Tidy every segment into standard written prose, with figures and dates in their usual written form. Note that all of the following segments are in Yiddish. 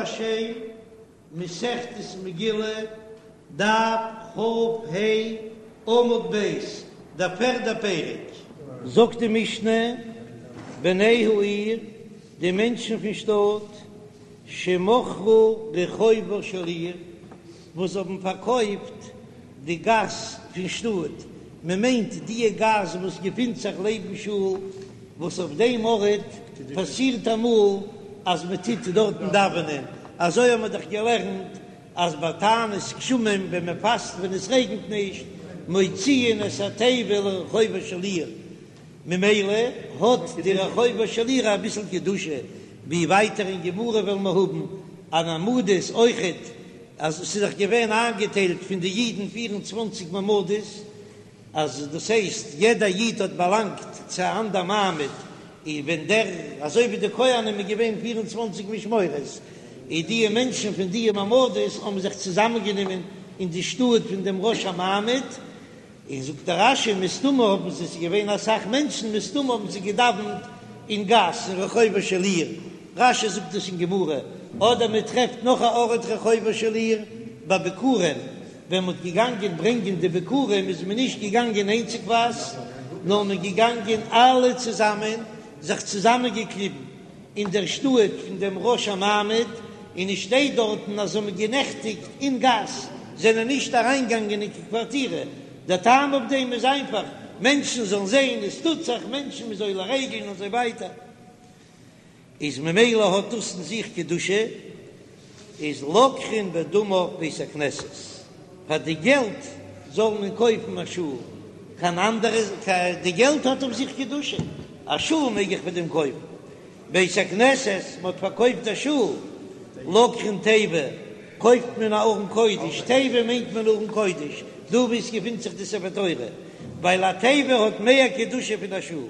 השם, מסכת מגילה, דף כ"ה, עמוד ב', דער פערדער פרק. זאגט די משנה, בני העיר, די מענטשן פון שטאט, שמכרו רחובה של עיר, וואס האבן פארקויפט די גאס פון שטאט, מען מיינט דיע גאס וואס געפינט זיך לעבן שול, וואס אויף דעם ארט פאסירט אמאל אז מען טוט דארטן דאווענען, אזוי האבן מיר דאך געלערנט אז ביי תענית גשמים ווען מען פאסט ווען עס רעגנט נישט, מוציאין את התיבה לרחובה של עיר, ממילא האט די רחובה של עיר אביסל קדושה, ווי ווייטער אין גמרא וועלן מיר האבן אן מעמדות אויכעט, אז עס איז דאך געווען איינגעטיילט פון די אידן 24 מעמדות, אז דאס הייסט יעדע איד האט באלאנגט צו א אנדער מעמד, און ווען דער, אזוי ווי די כהנים איז געווען 24 משמרות, און דיע מענטשן פון דיע מעמדות האבן זיך צוזאמענגענומען אין די שטאט פון דעם ראש המעמד, און זאגט דער רש"י מסתמא האבן זיי, ס'איז געווען אסאך מענטשן, מסתמא האבן זיי געדאווענט אין גאס אין רחובה של עיר, רש"י זאגט דאס אין גמרא, אדער מען טרעפט נאך א ארט רחובה של עיר ביי ביכורים, ווען מען האט געגאנגען ברענגען די ביכורים איז מען נישט געגאנגען איינציגווייז, נאר מען געגאנגען אלע צוזאמען, זיך צוזאמען געקליבן אין דער שטאט פון דעם ראש המעמד, און עס שטייט דארטן אז זיי האבן גענעכטיגט אין גאס, זענען נישט אריינגעגאנגען אין קיין קווארטירע, דער טעם אויף דעם איז איינפאך, מענטשן זאלן זען עס טוט זיך, מענטשן מ'איז עולה רגל און אזוי ווייטער, איז ממילא האט דאס אין זיך קדושה, איז לוקחין בדמיו בית הכנסת, פאר די געלט זאל מען קויפן א שול, קיין אנדערע, די געלט האט אויף זיך קדושה, א שול מעג איך פאר דעם קויפן, בית הכנסת, מען האט פארקויפט א שול, לוקחין תיבה, קויפט מען א ארון קודש, תיבה מיינט מען ארון קודש, דא וואו עס געפינט זיך די ספר תורה, ווייל א תיבה האט מער קדושה פון א שול,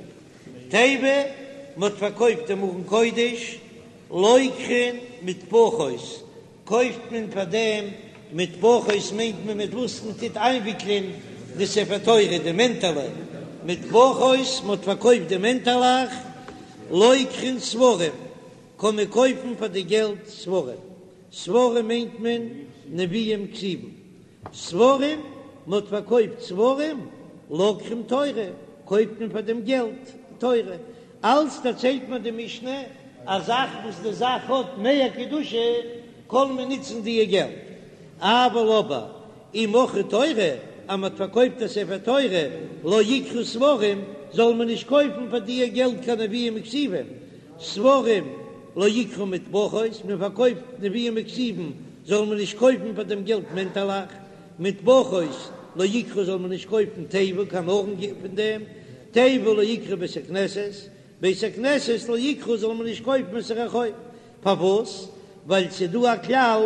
תיבה, מען האט פארקויפט דעם ארון קודש, לוקחין מטפחות, קויפט מען פאר דעם מטפחות מיינט מען מיט וואס מען טוט איינוויקלען די ספר תורה די מענטעלע מטפחות מען האט פארקויפט די מענטעלעך לוקחין ספרים קען מען קויפן פאר די געלט ספרים ספרים מיינט מען נביאים כתובים ספרים מען האט פארקויפט ספרים לוקחין תורה קויפט מען פאר דעם געלט תורה אלץ דערציילט מיר די משנה א זאך וואס די זאך האט מער קדושה קען מען נוצן דיע געלט, אבל אבער אם מכרו תורה אז מען האט פארקויפט א ספר תורה לא יקחו ספרים זאל מען נישט קויפן פאר דיע געלט קיין נביאים וכתובים, ספרים לא יקחו מטפחות, מען פארקויפט נביאים וכתובים זאל מען נישט קויפן פאר דעם געלט מענטעלעך, מטפחות לא יקחו זאל מען נישט קויפן תיבה קיין ארון פון דעם, תיבה לא יקחו בית הכנסת, בית הכנסת לא יקחו זאל מען נישט קויפן את הרחוב, פארוואס? ווייל ס'איז דא א כלל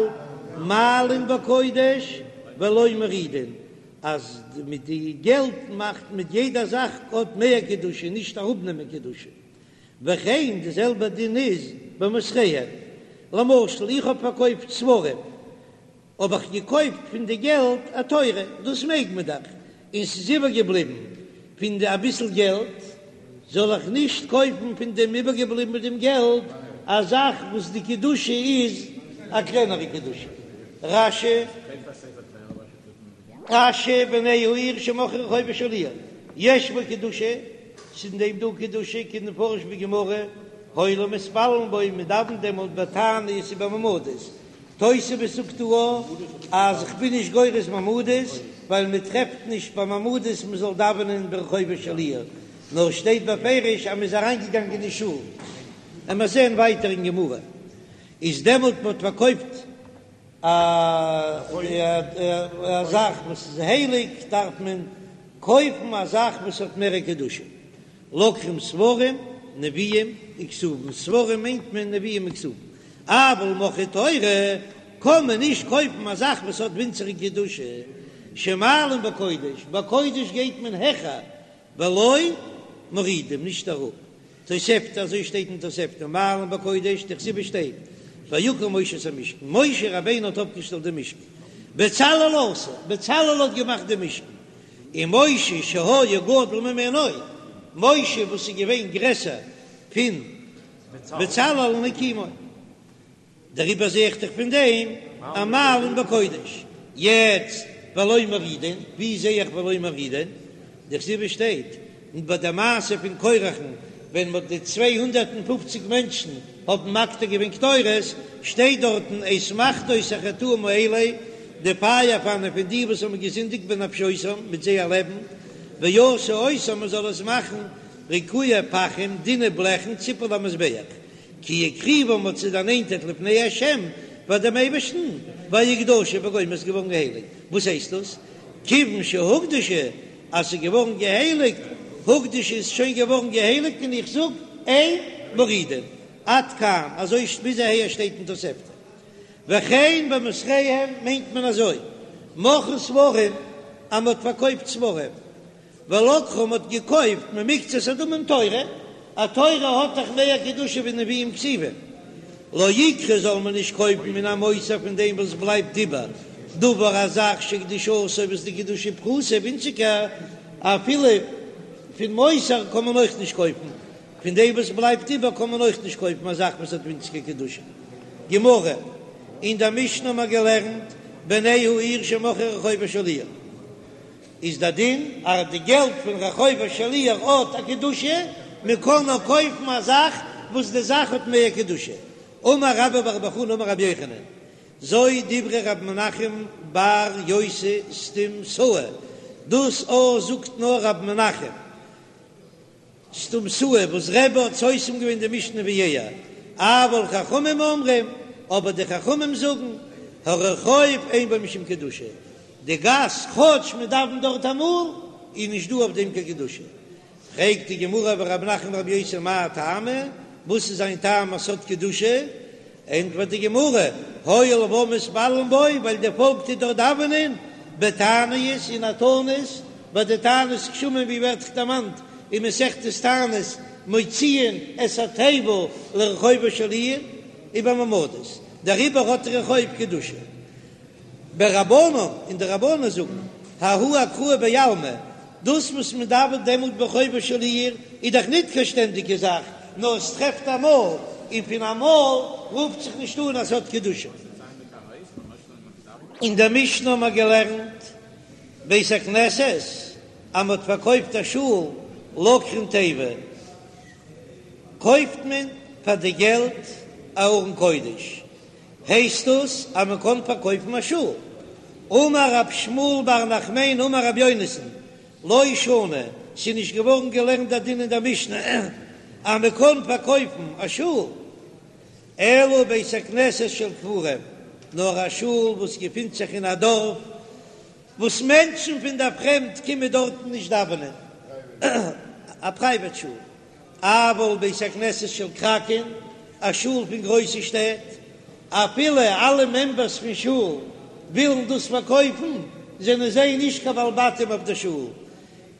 מעלין בקודש ולא מורידין, אז מיט די געלט מאכט מיט יעדע זאך האט מער קדושה נישט אראפנעמען קדושה, וכן די זעלבע דין איז במותריהן, למשל איך האב פארקויפט ספרים האב איך געקויפט פון די געלט א תורה, דאס מעג מען דאך, און ס'איז איבערגעבליבן פון די אביסל געלט, זאל איך נישט קויפן פון דעם איבערגעבליבן מיט דעם געלט א זאך וואס די קדושה איז א קלענערע קדושה? רש"י. רש"י בני העיר שמכרו רחובה של עיר יש בו קדושה, ס'איז אין דעם דא קדושה כדמפרש בגמרא, הואיל ומתפללין בו, מ'דאווענט דעמאלט בתענית ובמעמדות, תוספות זאגט דא אז כ'בין נישט גורס מעמדות, ווייל מען טרעפט נישט ביי מעמדות מען זאל דאווענען ברחובה של עיר, נאר שטייט בפירוש אז מען איז אריינגעגאנגען אין שול. עמער זען ווייטער אין גמרא, איז דעמאלט מען האט פארקויפט א זאך וואס איז הייליג דארף מען קויפן א זאך וואס האט מער קדושה. לוקחים ספרים, נביאים, וכתובים, ספרים מיינט מען נביאים וכתובים, אבל מכרו תורה קען מען נישט קויפן א זאך וואס האט ווינציגער קדושה, שמעלין בקודש, בקודש גייט מען העכער, ולא מורידים, נישט אראפ, תוספתא, אזוי שטייט אין תוספתא, מעלין בקודש, דכתיב שטייט, ויקם משה את המשכן, משה רבינו האט אויפגעשטעלט דעם משכן, בצלאל עשה, בצלאל האט געמאכט דעם משכן, און משה שהיה גדול ממנו, משה וואס איז געווען גרעסער פון בצלאל הקימו. דעריבער זע איך דאך פון דעם אז מעלין בקודש. יעצט ולא מורידין, ווי זע איך ולא מורידין? דכתיב שטייט ביי די מעשה פון קורח'ן ווען מ'האט די 250 מענטשן האבן מקטיר געווען קטורת, שטייט דארטן את מחתות החטאים האלה, די פייער פאנען פון די וואס האבן געזינדיגט בנפשותם מיט זייער לעבן, ועשו אותם מען זאל עס מאכן ריקועי פחים דינע בלעכן ציפוי למזבח, כי הקריבם מ'האט זיי דערנענטערט לפני השם פאר דעם אייבערשטן, ויקדשו וגומר איז געווארן געהייליגט, וואס הייסט דאס? כיוון שהוקדשו אז ס'איז געווארן געהייליגט, הוקדשו איז שוין געווארן געהייליגט און איך זאג אין מורידין, עד כאן, אזוי ביז אהער שטייט אין תוספתא. וכן במותריהם מיינט מען אזוי, מכרו ספרים אז מ'האט פארקויפט ספרים, ולקחו מ'האט געקויפט ממקצת הדמים תורה, א תורה האט דאך מער קדושה ווי נביאים כתובים, לא יקחו זאל מען נישט קויפן מן המותר פון דעם וואס בלייבט איבער, דבר א זאך שקדושתו וואס די קדושה פחותה ווינציגער, אפילו פון מותר קען מען אויך נישט קויפן, פון דעם וואס בלייבט איבער קען מען אויך נישט קויפן א זאך וואס האט ווינציגער קדושה. גמרא, אין דער משנה האט מען געלערנט בני העיר שמכרו רחובה של עיר. איז דער דין אז די געלט פון רחובה של עיר האט א קדושה, מען קען נאר קויפן א זאך וואס די זאך האט מער קדושה. אמר רבה בר בר חנה אמר רבי יוחנן, זו דברי ר' מנחם בר יוסי סתומתאה, דאס א זאגט נאר ר' מנחם, סתומתאה וואס רבי האט סותם געווען די משנה ווי ער, אבל חכמים אומרים, אבער די חכמים זאגן, הרחוב אין בו משום קדושה, די גאס כאטש מען דאווענט דארט אמאל, איז נישט דא אויף דעם קיין קדושה. פרעגט די גמרא ורב מנחם בר יוסי מאי טעמא, וואס איז זיין טעם אז ס'האט קדושה? ענטפערט די גמרא, הואיל והעם מתפללין בו, ווייל די פאלק טוט דארט דאווענען, בתעניות אין א תענית, ביי די תענית גשמים ווי ווערט דערמאנט אין מסכת תענית, מוציאין את התיבה לרחובה של עיר, ובמעמדות, דעריבער האט רחוב קדושה. ורבנן, און די רבנן זאגן, ההוא אקראי בעלמא, דאס וואס מען דאווענט דעמאלט ברחובה של עיר איז דאך ניט קיין שטענדיגע זאך, נאר עס טרעפט אמאל, און פון אמאל רופט זיך נישט אן אז ס'האט קדושה. אין דער משנה האבן מיר געלערנט, בית הכנסת, אז מען האט פארקויפט א שול, לוקחין תיבה, קויפט מען פאר די געלט א ארון קודש, הייסט דאס אז מען קען פארקויפן א שול? אמר רב שמואל בר נחמני אמר רבי יונתן, לא שנו, ס'איז נישט געווארן געלערנט דער דין אין דער משנה אז מען קען פארקויפן א שול, אלא בית הכנסת של כפרים, נאר א שול וואס געפינט זיך אין א דארף וואס מענטשן פון דער פרעמד קומען דארטן נישט דאווענען, א פרייוועט שול. אבל בית הכנסת של כרכין, א שול פון גרויסע שטעט, אפילו אלע מעמבערס פון שול ווילן דאס פארקויפן, זענען זיי נישט קיין בעלי בתים אויף די שול,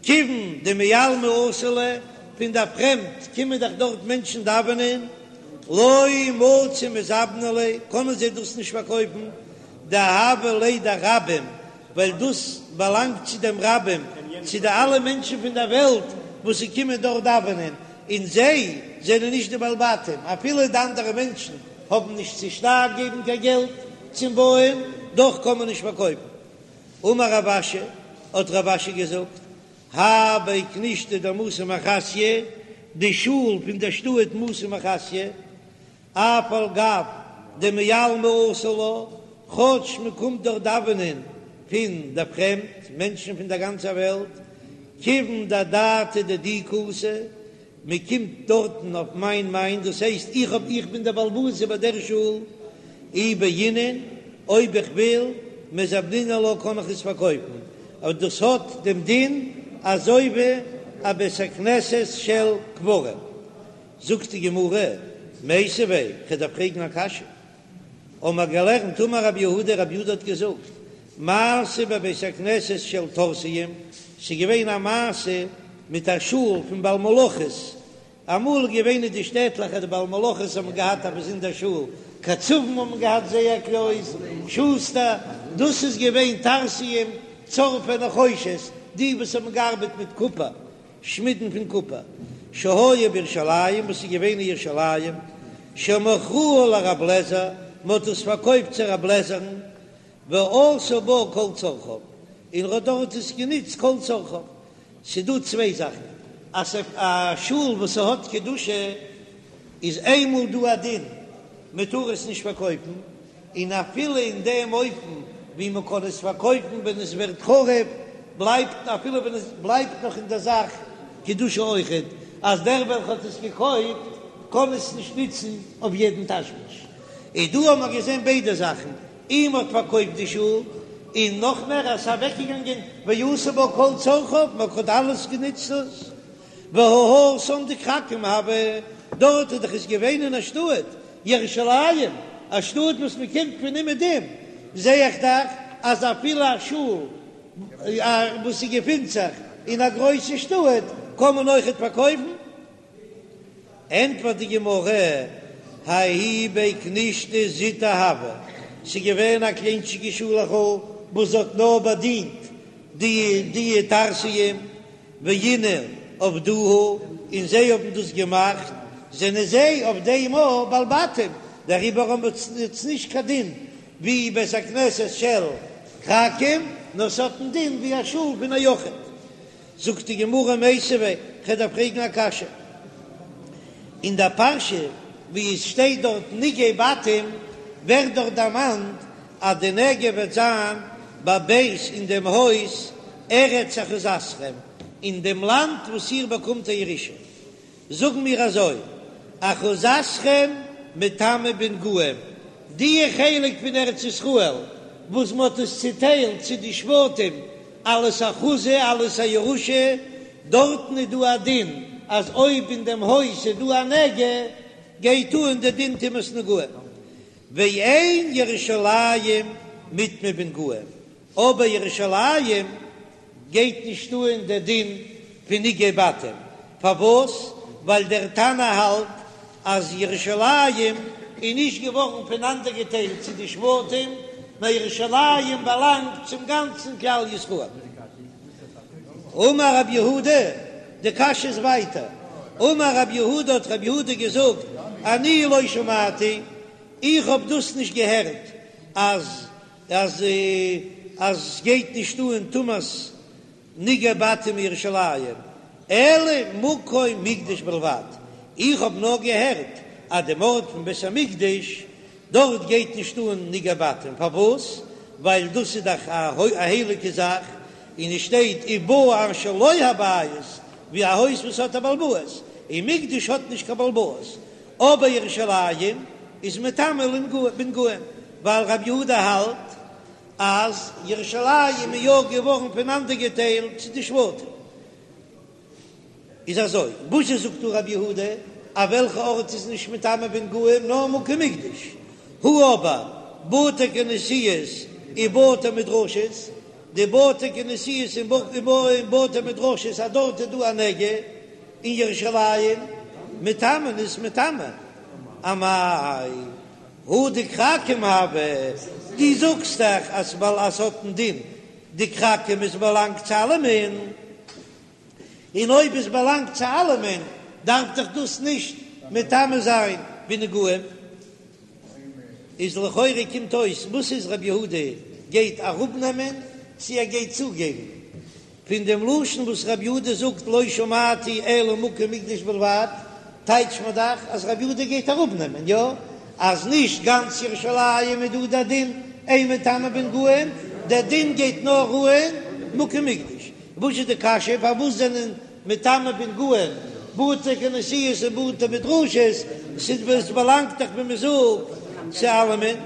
כיוון דמעלמא אתו ליה, פון דער פרעמד קומען דאך דארט מענטשן דאווענען, לא מצו מזבני ליה, קענען זיי דאס נישט פארקויפן, דהוה ליה דרבים, ווייל דאס באלאנגט צו דעם רבים, צו די אלע מענטשן פון דער וועלט וואס זיי קומען דארט דאווענען, און זיי זענען נישט די בעלי בתים, אפילו די אנדערע מענטשן האבן נישט צושטייער געבן קיין געלט צום בויען, דאך קען מען נישט פארקויפן. אמר רב אשי, האט רב אשי געזאגט, האי בי כנישתא דמתא מחסיא, די שול פון דער שטאט מתא מחסיא, אף על גב דמעלמא אתו לה, כאטש מען קומט דארט דאווענען פון דער פרעמד, מענטשן פון דער גאנצער וועלט, כיוון דאדעתא דידי קאתי, מען קומט דארטן אויף מיין מיין, דאס הייסט איך האב איך בין דער בעל הבית איבער דער שול, אי בעינא, אויב איך וויל, מזבנינא לה קען איך עס פארקויפן, אבער דאס האט דעם דין אזוי ווי א בית הכנסת של כפרים. זאגט די גמרא, מיתיבי, כ'וועל דיר פרעגן א קשיא, האבן מיר געלערנט אמר רב יהודה, רב יהודה האט געזאגט, מעשה בבית הכנסת של טורסיים, ס'איז געווען א מעשה מיט א שול פון בעל מלאכות, אמאל איז געווען אין די שטעטלעך אז די בעל מלאכות האבן געהאט א באזונדער שול, קצבים האבן געהאט זייער קלויז, שוסטער, דאס איז געווען טרסיים, צורפי נחושת, די וואס האבן געארבעט מיט קופער, שמידן פון קופער, שהיה בירושלים, וואס איז געווען אין ירושלים, שמכרוה לרב לעזער, מען האט עס פארקויפט צו רב לעזער'ן, ועשה בה כל צרכיו, און ער האט דארט עס גענוצט כל צרכיו. ס'דא צוויי זאכן, אז א שול וואס ס'האט קדושה איז איינמאל דא א דין מען טאר עס נישט פארקויפן, און אפילו אין דעם אופן ווי מען קען עס פארקויפן ווען עס ווערט חרוב, בלייבט אפילו ווען עס בלייבט נאך אין דער זאך קדושה אויכעט, אז דער וועלכע האט עס געקויפט קען עס נישט נוצן אויף יעדן תשמיש. און דא האבן מיר געזען ביידע זאכן, און מ'האט פארקויפט די שול, און נאך מער אז ס'איז אוועקגעגאנגען ועשה בה כל צרכיו, מען האט אלעס גענוצט דאס, והא התם דכרכים הוה, דארט איז דאך עס געווען אין א שטאט, ירושלים, א שטאט וואס מען קומט פון אומעדום, זע איך דאך אז אפילו א שול וואס ס'געפינט זיך אין א גרויסע שטאט קען מען אויכעט פארקויפן. ענטפערט די גמרא, ההיא בי כנישתא זוטא הוה, ס'איז געווען א קליינטשיגע שולעכל וואס האט נאר באדינט די די טרסיים, ואינהו עבדוה, און זיי האבן דאס געמאכט, זענען זיי אויף דעם אויך בעלי בתים, דעריבער האבן עס נישט קיין דין ווי בית הכנסת של כרכים, נאר ס'האט א דין ווי א שול פון א יחיד. זאגט די גמרא מיתיבי, כ'וועל דיר פרעגן א קשיא, אין דער פרשה ווי עס שטייט דארט נגעי בתים, ווערט דארט דערמאנט אז די נגע וועט זיין בבית אין דעם הויז ארץ אחוזתכם, אין דעם לאנד וואס איר באקומט א ירושה. זאגן מיר אזוי, אחוזתכם מטמא בנגעים, די חלק פון ארץ ישראל וואס מען האט עס צוטיילט צו די שבטים אלס אחוזה אלס א ירושה, דארטן איז דא א דין אז אויב אין דעם הויז איז דא א נגע גייט אן די דין טומאת נגעים, ואין ירושלים מטמא בנגעים, אבער ירושלים גייט נישט אן דער דין פון נגעי בתים, פארוואס? ווייל דער תנא האלט אז ירושלים איז נישט געווארן פונאנדערגעטיילט צו די שבטים, נאר ירושלים באלאנגט צום גאנצן כלל ישראל. אמר רב יהודה, די קשיא איז ווייטער, אמר רב יהודה האט רב יהודה געזאגט, אני לא שמעתי, איך האב דאס נישט געהערט אז אז אז סגייט נישט אן טומאת נגעי בתים ירושלים אלא מקום מקדש בלבד, איך האב נאר געהערט אז דעם ארט פון בית המקדש דארט גייט נישט אן נגעי בתים, פארוואס? ווייל דאס איז דאך א הייליגע זאך, און עס שטייט ובא אשר לו הבית, ווי א הויז וואס האט א בעל בית, און מקדש האט נישט קיין בעל בית, אבער ירושלים איז מטמא בנגעים, ווייל רבי יהודה האלט אז ירושלים איז יא געווארן פונאנדערגעטיילט צו די שבטים. איז אזוי, וואס זשע זאגט דא רבי יהודה אז וועלכע ארט איז נישט מטמא בנגעים נאר מקום מקדש, הא אבער בתי כנסיות ובתי מדרשות, די בתי כנסיות און בתי מדרשות אז דארט איז דא א נגע, אין ירושלים מטמאין איז מטמא אמאי הא דכרכים הוה, דו זאגסט דאך אז ווייל אז ס'האט א דין דכרכים עס באלאנגט צו אלעמען, און אויב עס באלאנגט צו אלעמען דארף דאך דאס נישט מטמא זיין בנגעים. איז לכאורה קומט אויס וואס איז רבי יהודה גייט אראפנעמען צו ער גייט צוגעבן? פון דעם לשון וואס רבי יהודה זאגט לא שמעתי אלא מקום מקדש בלבד, טייטשט מען דאך אז רבי יהודה גייט אראפנעמען, יא? אז נישט גאנץ ירושלים איז דא דער דין אין מטמא בנגעים, דער דין גייט נאר אן מקום מקדש. וואס איז די קשיא פארוואס זענען מטמא בנגעים בתי כנסיות און בתי מדרשות, ס'איז באלאנגט דאך ווי מ'זאגט צו אלעמען?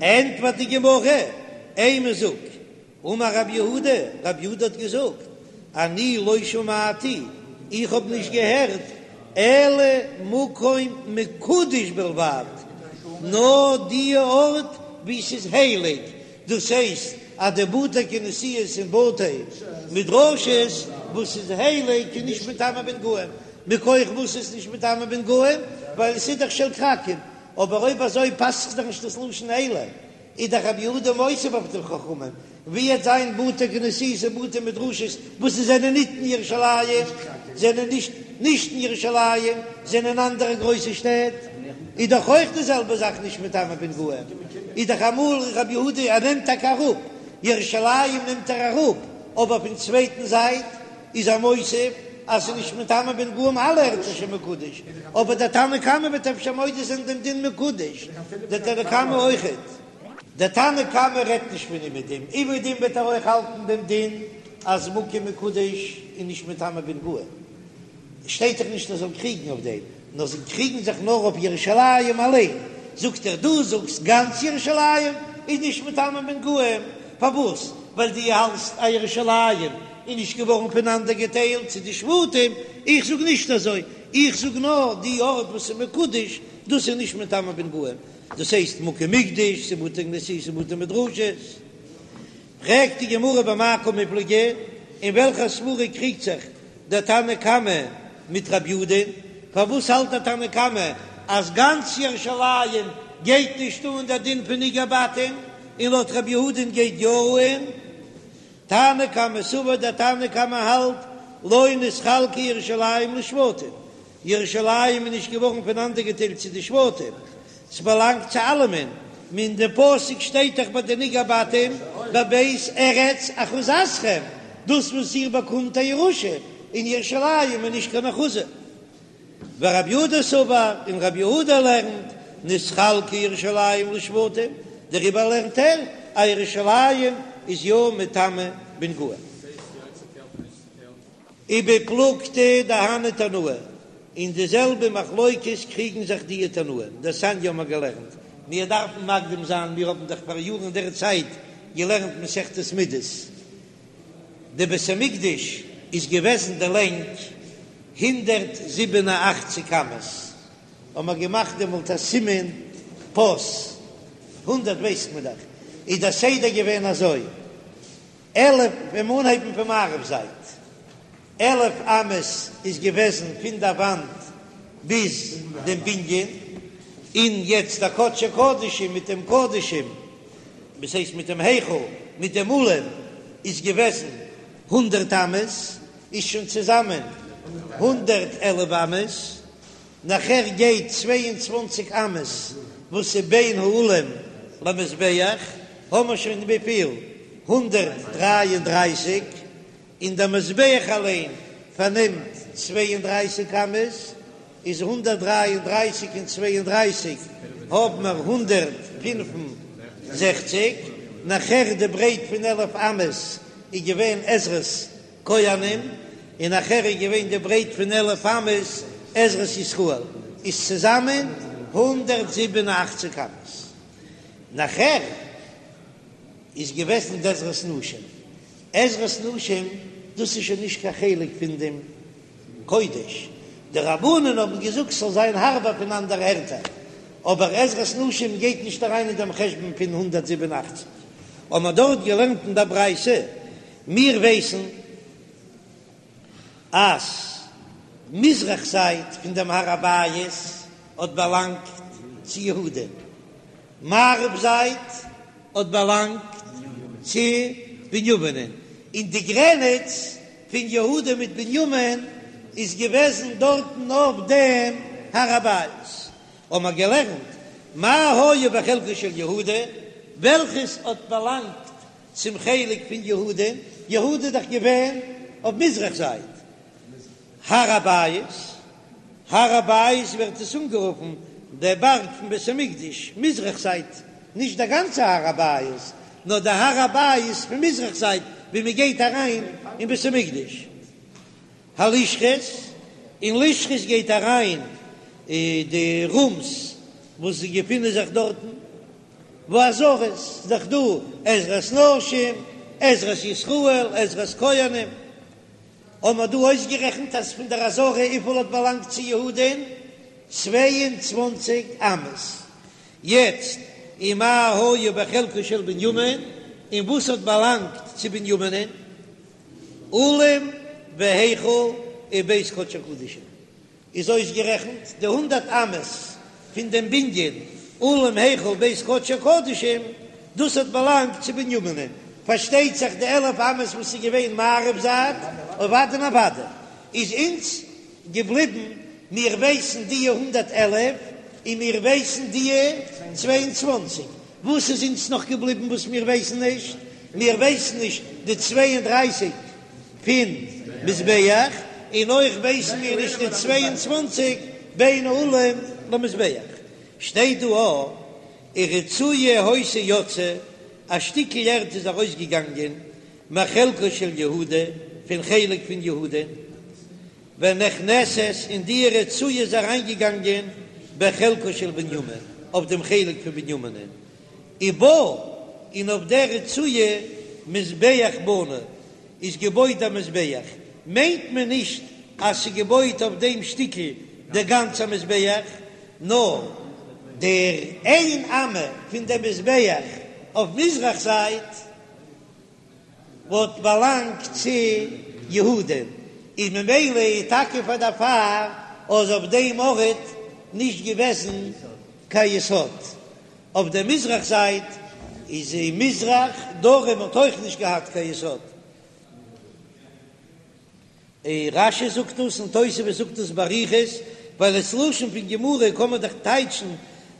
ענטפערט די גמרא, אימא זאג אמר רב יהודה, רב יהודה האט געזאגט, אני לא שמעתי, איך האב נישט געהערט, אלא מקום מקודש בלבד, נאר די ארט וואו ס'איז הייליג, דאס הייסט אז די בתי כנסיות און בתי מדרשות וואס איז הייליג איז נישט מטמא בנגעים, מכח וואס איז נישט מטמא בנגעים? ווייל עס איז דאך של כרכים, אבער אויב אזוי פאסט זיך דאך נישט דאס לשון אלא. איז דאך רבי יהודה מוסיף אויף די חכמים, ווי עט זיין בתי כנסיות און בתי מדרשות וואס זיי זענען ניט אין ירושלים, זענען נישט. נישט אין ירושלים, זענען אנדערע גרויסע שטעט, איז דאך אויך די זעלבע זאך נישט מטמא בנגעים, איז דאך אמאל רבי יהודה ער נעמט טאקע אראפ ירושלים נעמט ער אראפ, אבער פון צווייטן זייט איז ער מוסיף אז ס'איז נישט מטמא בנגעים אלע ערטער שמקודש, אבער דער תנא קמא וועט אפשר מודה זיין דעם דין מקודש, דער תנא קמא אויכעט. דער תנא קמא רעדט נישט פון אומעדום, אומעדום וועט ער אויך האלטן דעם דין אז מקום מקודש איז נישט מטמא בנגעים, שטייט דאך נישט ער זאל קריגן אויף דעם, נאר זיי קריגן זיך נאר אויף ירושלים אליין, זאגט ער דו זאגסט גאנץ ירושלים איז נישט מטמא בנגעים, פארוואס? ווייל דו האלטסט אז ירושלים איז נישט געווארן פונאנדערגעטיילט צו די שבטים, איך זאג נישט אזוי, איך זאג נאר די ארט וואס איז מקודש דאס איז נישט מטמא בנגעים, דאס הייסט מקום מקדש, ס'איז בתי כנסיות און בתי מדרשות. פרעגט די גמרא במאי קמיפלגי, אין וועלכע סברא קריגט זיך דער תנא קמא מיט רב יהודה'ן? פארוואס האלט דער תנא קמא אז גאנץ ירושלים גייט נישט אן דער דין פון נגעי בתים, און לויט רב יהודה'ן גייט יא אן? תנא קמא סבר, דער תנא קמא האלט לא נתחלקה ירושלים לשבטים, ירושלים איז נישט געווארן פונאנדערגעטיילט צו די שבטים, ס'באלאנגט צו אלעמען, אין די פסוק שטייט דאך ביי די נגעי בתים בבית ארץ אחוזתכם, דאס וואס איר באקומט א ירושה אין ירושלים איז נישט קיין אחוזה. ורב יהודה סבר, און רב יהודה לערנט, נתחלקה ירושלים לשבטים, דעריבער לערנט ער אז ירושלים איז יא מטמא בנגעים. ובפלוגתא דהני תנאי, אין די זעלבע מחלוקת קריגן זיך די תנאים, דתניא האבן מיר געלערנט, מיר דארפן מקדים זיין, מיר האבן דאך פאר יארן אין דער צייט געלערנט מסכת מידות, די בית המקדש איז געוועזן די לענג 187 אמות, האבן מיר געמאכט דעמאלט א סימן פס, הונדערט ווייסט מען דאך, איז דער סדר געווען אזוי, 11 ווען מיר אנהייבן פון מערב זייט, 11 אמות איז געוועזן פון דער וואנט ביז דעם בנין, און יעצט דער קדשי קדשים מיט דעם קדשים, דאס הייסט מיט דעם היכל מיט דעם אולם איז געוועזן הונדערט אמות, איז שוין צוזאמען 111 אמות. נאכער גייט 22 אמות וואס איז בין האולם למזבח, האמער שוין וויפיל? 133, און דער מזבח אליין פארנעמט 32 אמות, איז 133 און 32 האבן מיר 165, נאכער די ברייט פון עלף אמות איז געווען עזרת כהנים, און נאכער איז געווען די ברייט פון עלף אמות עזרת ישראל, איז צוזאמען 187 אמות. נאכער איז געוועזן די עזרת נשים, עזרת נשים דאס איז שוין נישט קיין חלק פון דעם קודש, די רבנן האבן געזאגט ס'זאל זיין הארבער פון אנדערע ערטער, אבער עזרת נשים גייט נישט אריין אין דעם חשבון פון 187. האבן מיר דארט געלערנט אין דער ברייתא מיר ווייסן אז מזרח זייט פון דעם הר הבית האט באלאנגט צו יהודה, מערב זייט האט באלאנגט צו בנימינען, און די גרעניץ פון יהודה מיט בנימין איז געוועזן דארטן אויף דעם הר הבית. האבן מיר געלערנט מה היה בחלקו של יהודה, וועלכעס האט באלאנגט צום חלק פון יהודה, יהודה איז דאך געווען אויף מזרח זייט הר הבית, הר הבית ווערט עס אנגערופן דער בארג פון בית המקדש, מזרח זייט, נישט דער גאנצער הר הבית, נאר דער הר הבית פון מזרח זייט ווי מען גייט אריין אין בית המקדש. הלשכות, אין לשכות גייט אריין די רומס וואס געפינען זיך דארטן, והעזרות, ס'איז דאך דא עזרת נשים, עזרת ישראל, עזרת כהנים, האבן מיר דא אויסגערעכנט אז פון דער עזרה וויפיל האט באלאנגט צו יהודה'ן? 22 אמות. יעצט, ומה היה בחלקו של בנימין, און וואס האט באלאנגט צו בנימינ'ן? אולם והיכל ובית קדשי הקדשים איז אויסגערעכנט די הונדערט אמות פון דעם בנין אולם היכל בית קדשי הקדשים, דאס האט באלאנגט צו בנימינ'ן, פארשטייט זיך די עלף אמות וואס איז געווען מערב זייט, אוודאי און אוודאי איז אונז. געבליבן, מיר ווייסן דיע 111 און מיר ווייסן דיע 22, וואס איז אונז נאך געבליבן וואס מיר ווייסן נישט? מיר ווייסן נישט די 32 פון מזבח, און אויך ווייסן מיר נישט די 22 בין האולם למזבח. שטייט דא א ורצועה היתה יוצאה, א שטיקל ערד איז ארויסגעגאנגען מחלקו של יהודה, פון חלק פון יהודה, ונכנסת, און די רצועה איז אריינגעגאנגען בחלקו של בנימין, אויף דעם חלק פון בנימינען, ובה, און אויף דער רצועה מזבח בנוי, איז געבויט א מזבח, מיינט מען נישט אז ס'איז געבויט אויף דעם שטיקל דער גאנצער מזבח, נאר דער איין אמה פון דעם מזבח אויף מזרח זייט וואלט באלאנגט צו יהודה, איז ממילא איז טאקע פאר דערפאר אז אויף דעם ארט נישט געוועזן קיין יסוד, אויף דער מזרח זייט איז אין מזרח, דרום האט אויך נישט געהאט קיין יסוד. רש"י זאגט דאס און תוספות זאגט דאס באריכות, ווייל עס לשון פון גמרא קען מען דאך טייטשן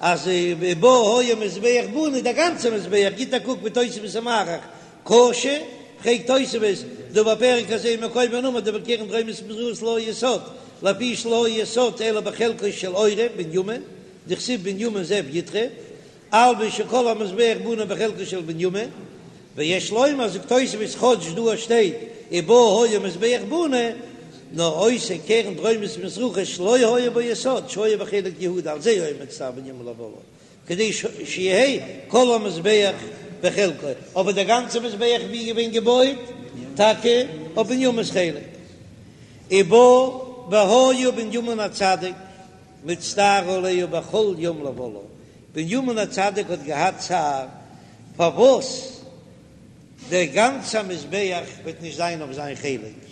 אז ובה היה מזבח בנוי דער גאנצער מזבח, גיט א קוק ווי תוספות איז מאריך, קשה, פרעגט תוספות, דהא בפרק הזה מקומו נאמר דבקרן דרומית ומזרחית לא היה יסוד, לפי שלא היה יסוד אלא בחלקו של עורב בנימין, דכתיב בנימין זאב יטרף, אלמא שכל המזבח בנוי בחלקו של בנימין, ויש לומר זאגט תוספות כאטש דא שטייט ובה היה מזבח בנוי, נאר אותה קרן דרומית ומזרחית שלא היה בה יסוד שהיה בחלק יהודה על זה היה מצטער בנימין לבלעה כדי שיהא כל המזבח בחלקו, אבער דער גאנצער מזבח ווי געווען געבויט? טאקע אויף בנימינ'ס חלק, ובה והיה בנימין הצדיק. מצטער עליה בכל יום לבלעה, בנימין הצדיק האט געהאט צער פארוואס דער גאנצער מזבח וועט נישט זיין אויף זיין חלק,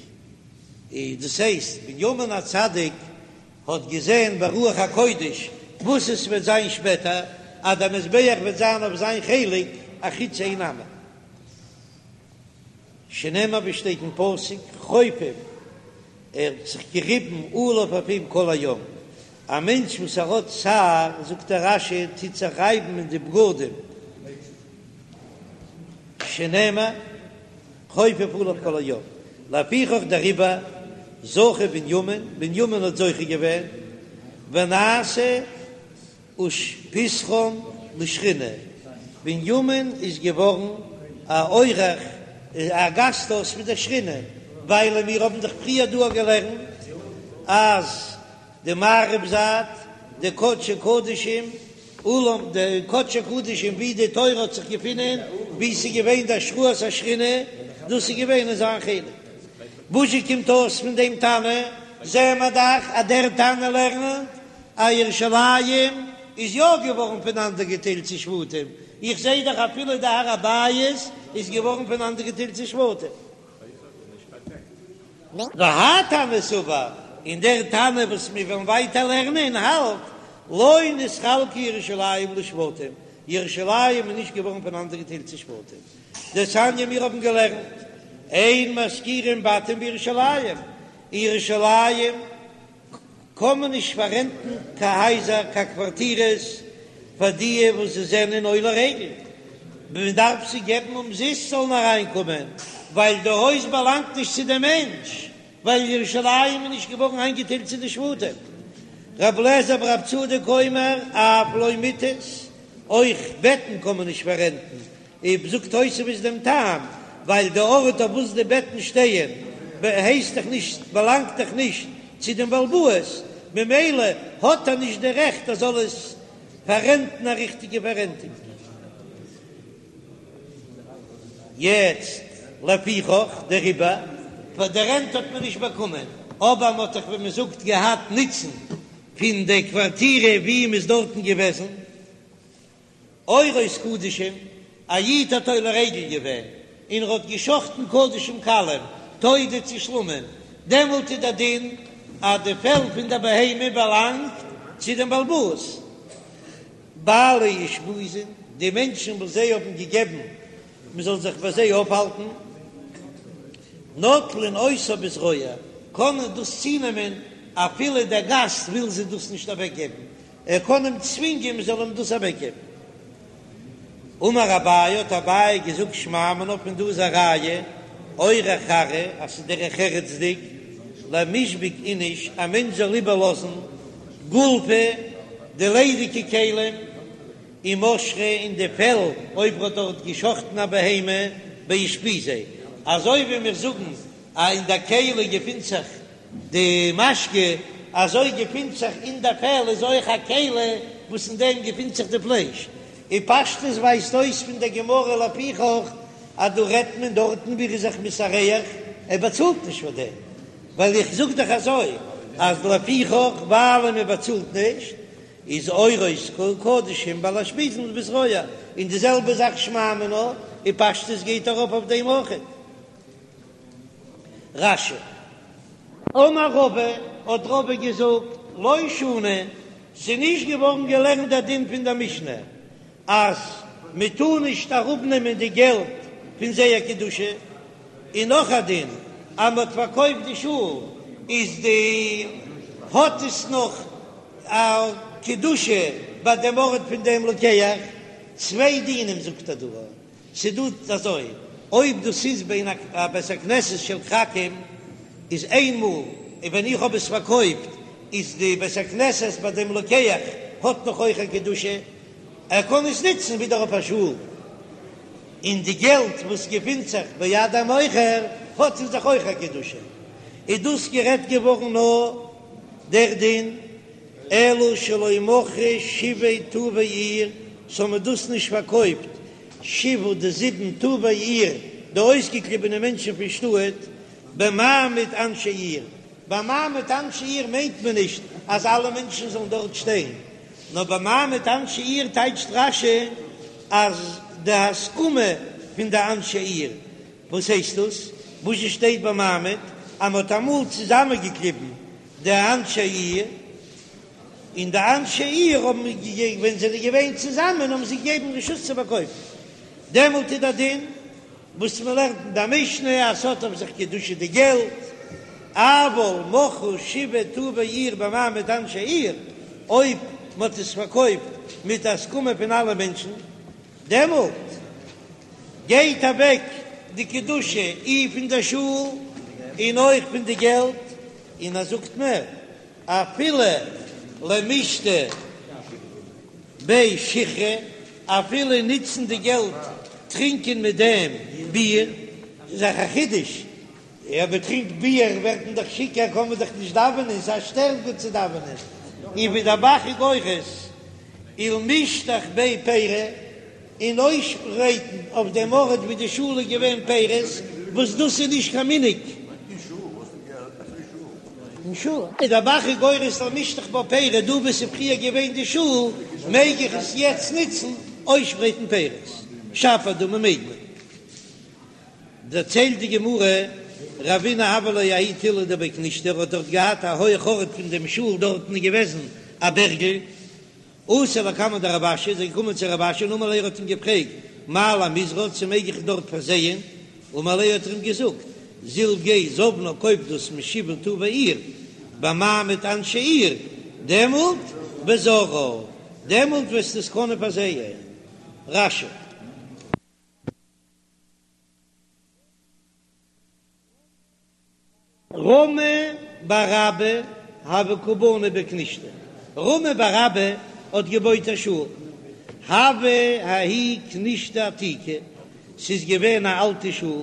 דאס הייסט בנימין הצדיק האט געזען ברוח הקודש וואס עס וועט זיין שפעטער, אז דער מזבח וועט זיין אויף זיין חלק אחוץ איין אמה. שנאמר ווי שטייט אין פסוק חופף, ער האט זיך געריבן עליו אויף אים כל היום, א מענטש וואס ער האט צער, זאגט דער רש"י, טוט זיך רייבן אין די בגדים, שנאמר חופף עליו כל היום, לפיכך דעריבער זכה בנימין, בנימין האט זוכה געווען, ונעשה אושפיזכן לשכינה, בנימין איז געווארן א אורח, א גאסט הויז פון דער שכינה, ווייל מיר האבן דאך פריער דא געלערנט אז די מערב זייט, די קדשי קדשים, אולם די קדשי קדשים ווי די תורה האט זיך געפונען, ווי ס'איז געווען די השראת השכינה, דאס איז געווען אין זיין חלק. וואזשע קומט אויס פון דעם תנא? זעען מיר דאך אז דער תנא לערנט אז ירושלים איז יא געווארן פונאנדערגעטיילט צו שבטים, איך זעה דאך אפילו די הר הבית איז געווארן פונאנדערגעטיילט צו שבטים. והאי תנא סבר, און דער תנא וואס מיר וועלן ווייטער לערנען האלט, לא נתחלקה ירושלים לשבטים, ירושלים איז נישט געווארן פונאנדערגעטיילט צו שבטים. דתניא מיר האבן געלערנט, אין משכירים בתים בירושלים, אין ירושלים קען מען נישט פאררענטן קיין הייזער קיין קווארטירעס פאר דיע וואס זיי זענען עולי רגל, מען דארף זיי געבן אומזיסט זאלן אריינקומען, ווייל די הויז באלאנגט נישט צו די מענטש, ווייל ירושלים איז נישט געווארן איינגעטיילט צו די שבטים. רב לעזער ברב צדוק אומר אף לא מטות, אויך בעטן קען מען נישט פאררענטן, אויב זאגט תוספות דעם טעם, ווייל די ארט אויף וואס די בעטן שטייען הייסט דאך נישט, באלאנגט דאך נישט צו דעם בעל הבית, ממילא האט ער נישט די רעכט ער זאל עס פאררענטן א ריכטיגע פאררענטונג. יעצט לפיכך דעריבער, פאר די רענט האט מען נישט באקומען, אבער מען האט דאך ווי מען זאגט געהאט נוצן פון די קווארטירע ווי מען איז דארטן געוועזן. עורות קדשים, א איד האט עולה רגל געווען און ער האט געשחטן קדשים קלים, תודה צו שלמים, דעמאלט איז דער דין אז די פעל פון דער בהמה באלאנגט צו דעם בעל הבית. בעלי אושפיזין, די מענטשן וואס זיי האבן געגעבן מען זאל זיך ביי זיי אויפהאלטן, נוטלין אותה בזרוע, קענען דאס צונעמען. אפילו דער גאסט וויל זיי דאס נישט אוועקגעבן, ער קען אים צווינגען מען זאל אים דאס אוועקגעבן. אמר אביי, האט אביי געזאגט שמע מינה פון דא איז א ראיה, אורח ארעא, אז ס'איז דרך ארץ'דיג, למישבק איניש, א מענטש זאל איבערלאזן גולפי, די ליידיגע כלים, ומשכא און די פעל, אויב ר'האט דארט געשחטן א בהמה, באושפיזיה, אזוי ווי מיר זאגן אז אין די כלי געפינט זיך די משקה, אזוי געפינט זיך אין די פעל איז אויך א כלי וואס אין דעם געפינט זיך די פלייש, און פשטות ווייזט אויס פון דער גמרא לפיכך אז דא רעדט מען דארטן ווי ער איז זיך מתארח, ער באצאלט נישט פאר דעם, ווייל איך זאג דאך אזוי אז לפיכך ווייל מען באצאלט נישט איז עורות קדשים בעלי אושפיזין בזרוע, און די זעלבע זאך שמע מינה, און פשטות גייט ארויף אויף דעם אויכעט. רש"י. אמר רבא, האט רבא געזאגט, לא שנו, ס'איז נישט געווארן געלערנט דער דין פון דער משנה אז מען טאר נישט אראפנעמען די געלט פון זייער קדושה, און נאך א דין אז מען האט פארקויפט די שול איז די האט עס נאך א קדושה ביי דעם ארט פון דעם לוקח, צוויי דינים זאגט ער דא. ס'דא אזוי, אויב דאס איז בין א בית הכנסת של כרכים איז איין מאל, און ווען איך האב עס פארקויפט איז די בית הכנסת ביי דעם לוקח האט נאך אויך א קדושה, ער קען עס נוצן ווידער אויף א שול, און די געלט וואס געפינט זיך ביד המוכר האט אין זיך אויך א קדושה, איז דאס גערעדט געווארן נאר דער דין אלא שלא מכרו שבעה טובי עיר, ס'האבן דאס נישט פארקויפט שבעה די זיבן טובי עיר, די אויסגעקליבענע מענטשן פון שטאט, במעמד אנשי עיר, במעמד אנשי עיר מיינט מען נישט אז אלע מענטשן זאלן דארט שטיין, נאר במעמד אנשי עיר טייטשט רש"י אז די הסכמה פון די אנשי עיר, וואס הייסט דאס? וואס שטייט במעמד אז מ'האט אמאל צוזאמענגעקליבן די אנשי עיר, און די אנשי עיר האבן געגעבן, ווען זיי זענען געווען צוזאמען האבן זיי געגעבן רשות צו פארקויפן, דעמאלט איז דער דין וואס מען לערנט אין די משנה אז ס'האט אויף זיך קדושה די געלט, אבל מכרו שבעה טובי עיר במעמד אנשי עיר, אויב מען האט עס פארקויפט מיט הסכמה פון אלע מענטשן, דעמאלט גייט אוועק די קדושה אי פון די שול און אויך פון די געלט, און ער זאגט מער, אפילו למישתי ביה שיכרא, אפילו נוצן די געלט טרינקען מיט דעם ביר, ס'איז דאך א חידוש, אויב מען טרינקט ביר ווערט מען דאך שיכור, קען מען דאך נישט דאווענען, ס'איז א שטערונג צו דאווענען, און ווי דער ב"ח איז גורס, ולמשטח ביה פירי, און אויסשפרייטן אויף דעם ארט ווי די שול איז געווען פירות, וואס דאס איז נישט קיין מנהג. אין שול איז דער ב"ח איז גורס למשטח בה פירי, דא וואו ס'איז פריער געווען די שול מעג איך עס יעצט נוצן אויסשפרייטן פירות, שפיר דמי מעג מען. דערציילט די גמרא, רבינא הוה ליה ההוא תילא דבי כנישתא, ער האט דארט געהאט א הויך ארט פון דעם שול, דארטן איז געוועזן א בערגל, אתא לקמיה דרב אשי, איז ער געקומען צו רב אשי און אמר ליה, ער האט אים געפרעגט, מהו למיזרעה, צו מעג איך דארט פארזייען? אמר ליה האט ער אים געזאגט, זיל גיי זבנה קויף דאס משבעה טובי עיר, במעמד אנשי עיר, דעמאלט וזרעה, דעמאלט וועסטו עס קענען פארזייען. רש"י. רמי בר אבא הוה קא בני בי כנישתא, רמי בר אבא האט געבויט א שול, הוה ההיא כנישתא עתיקא, ס'איז געווען א אלטע שול,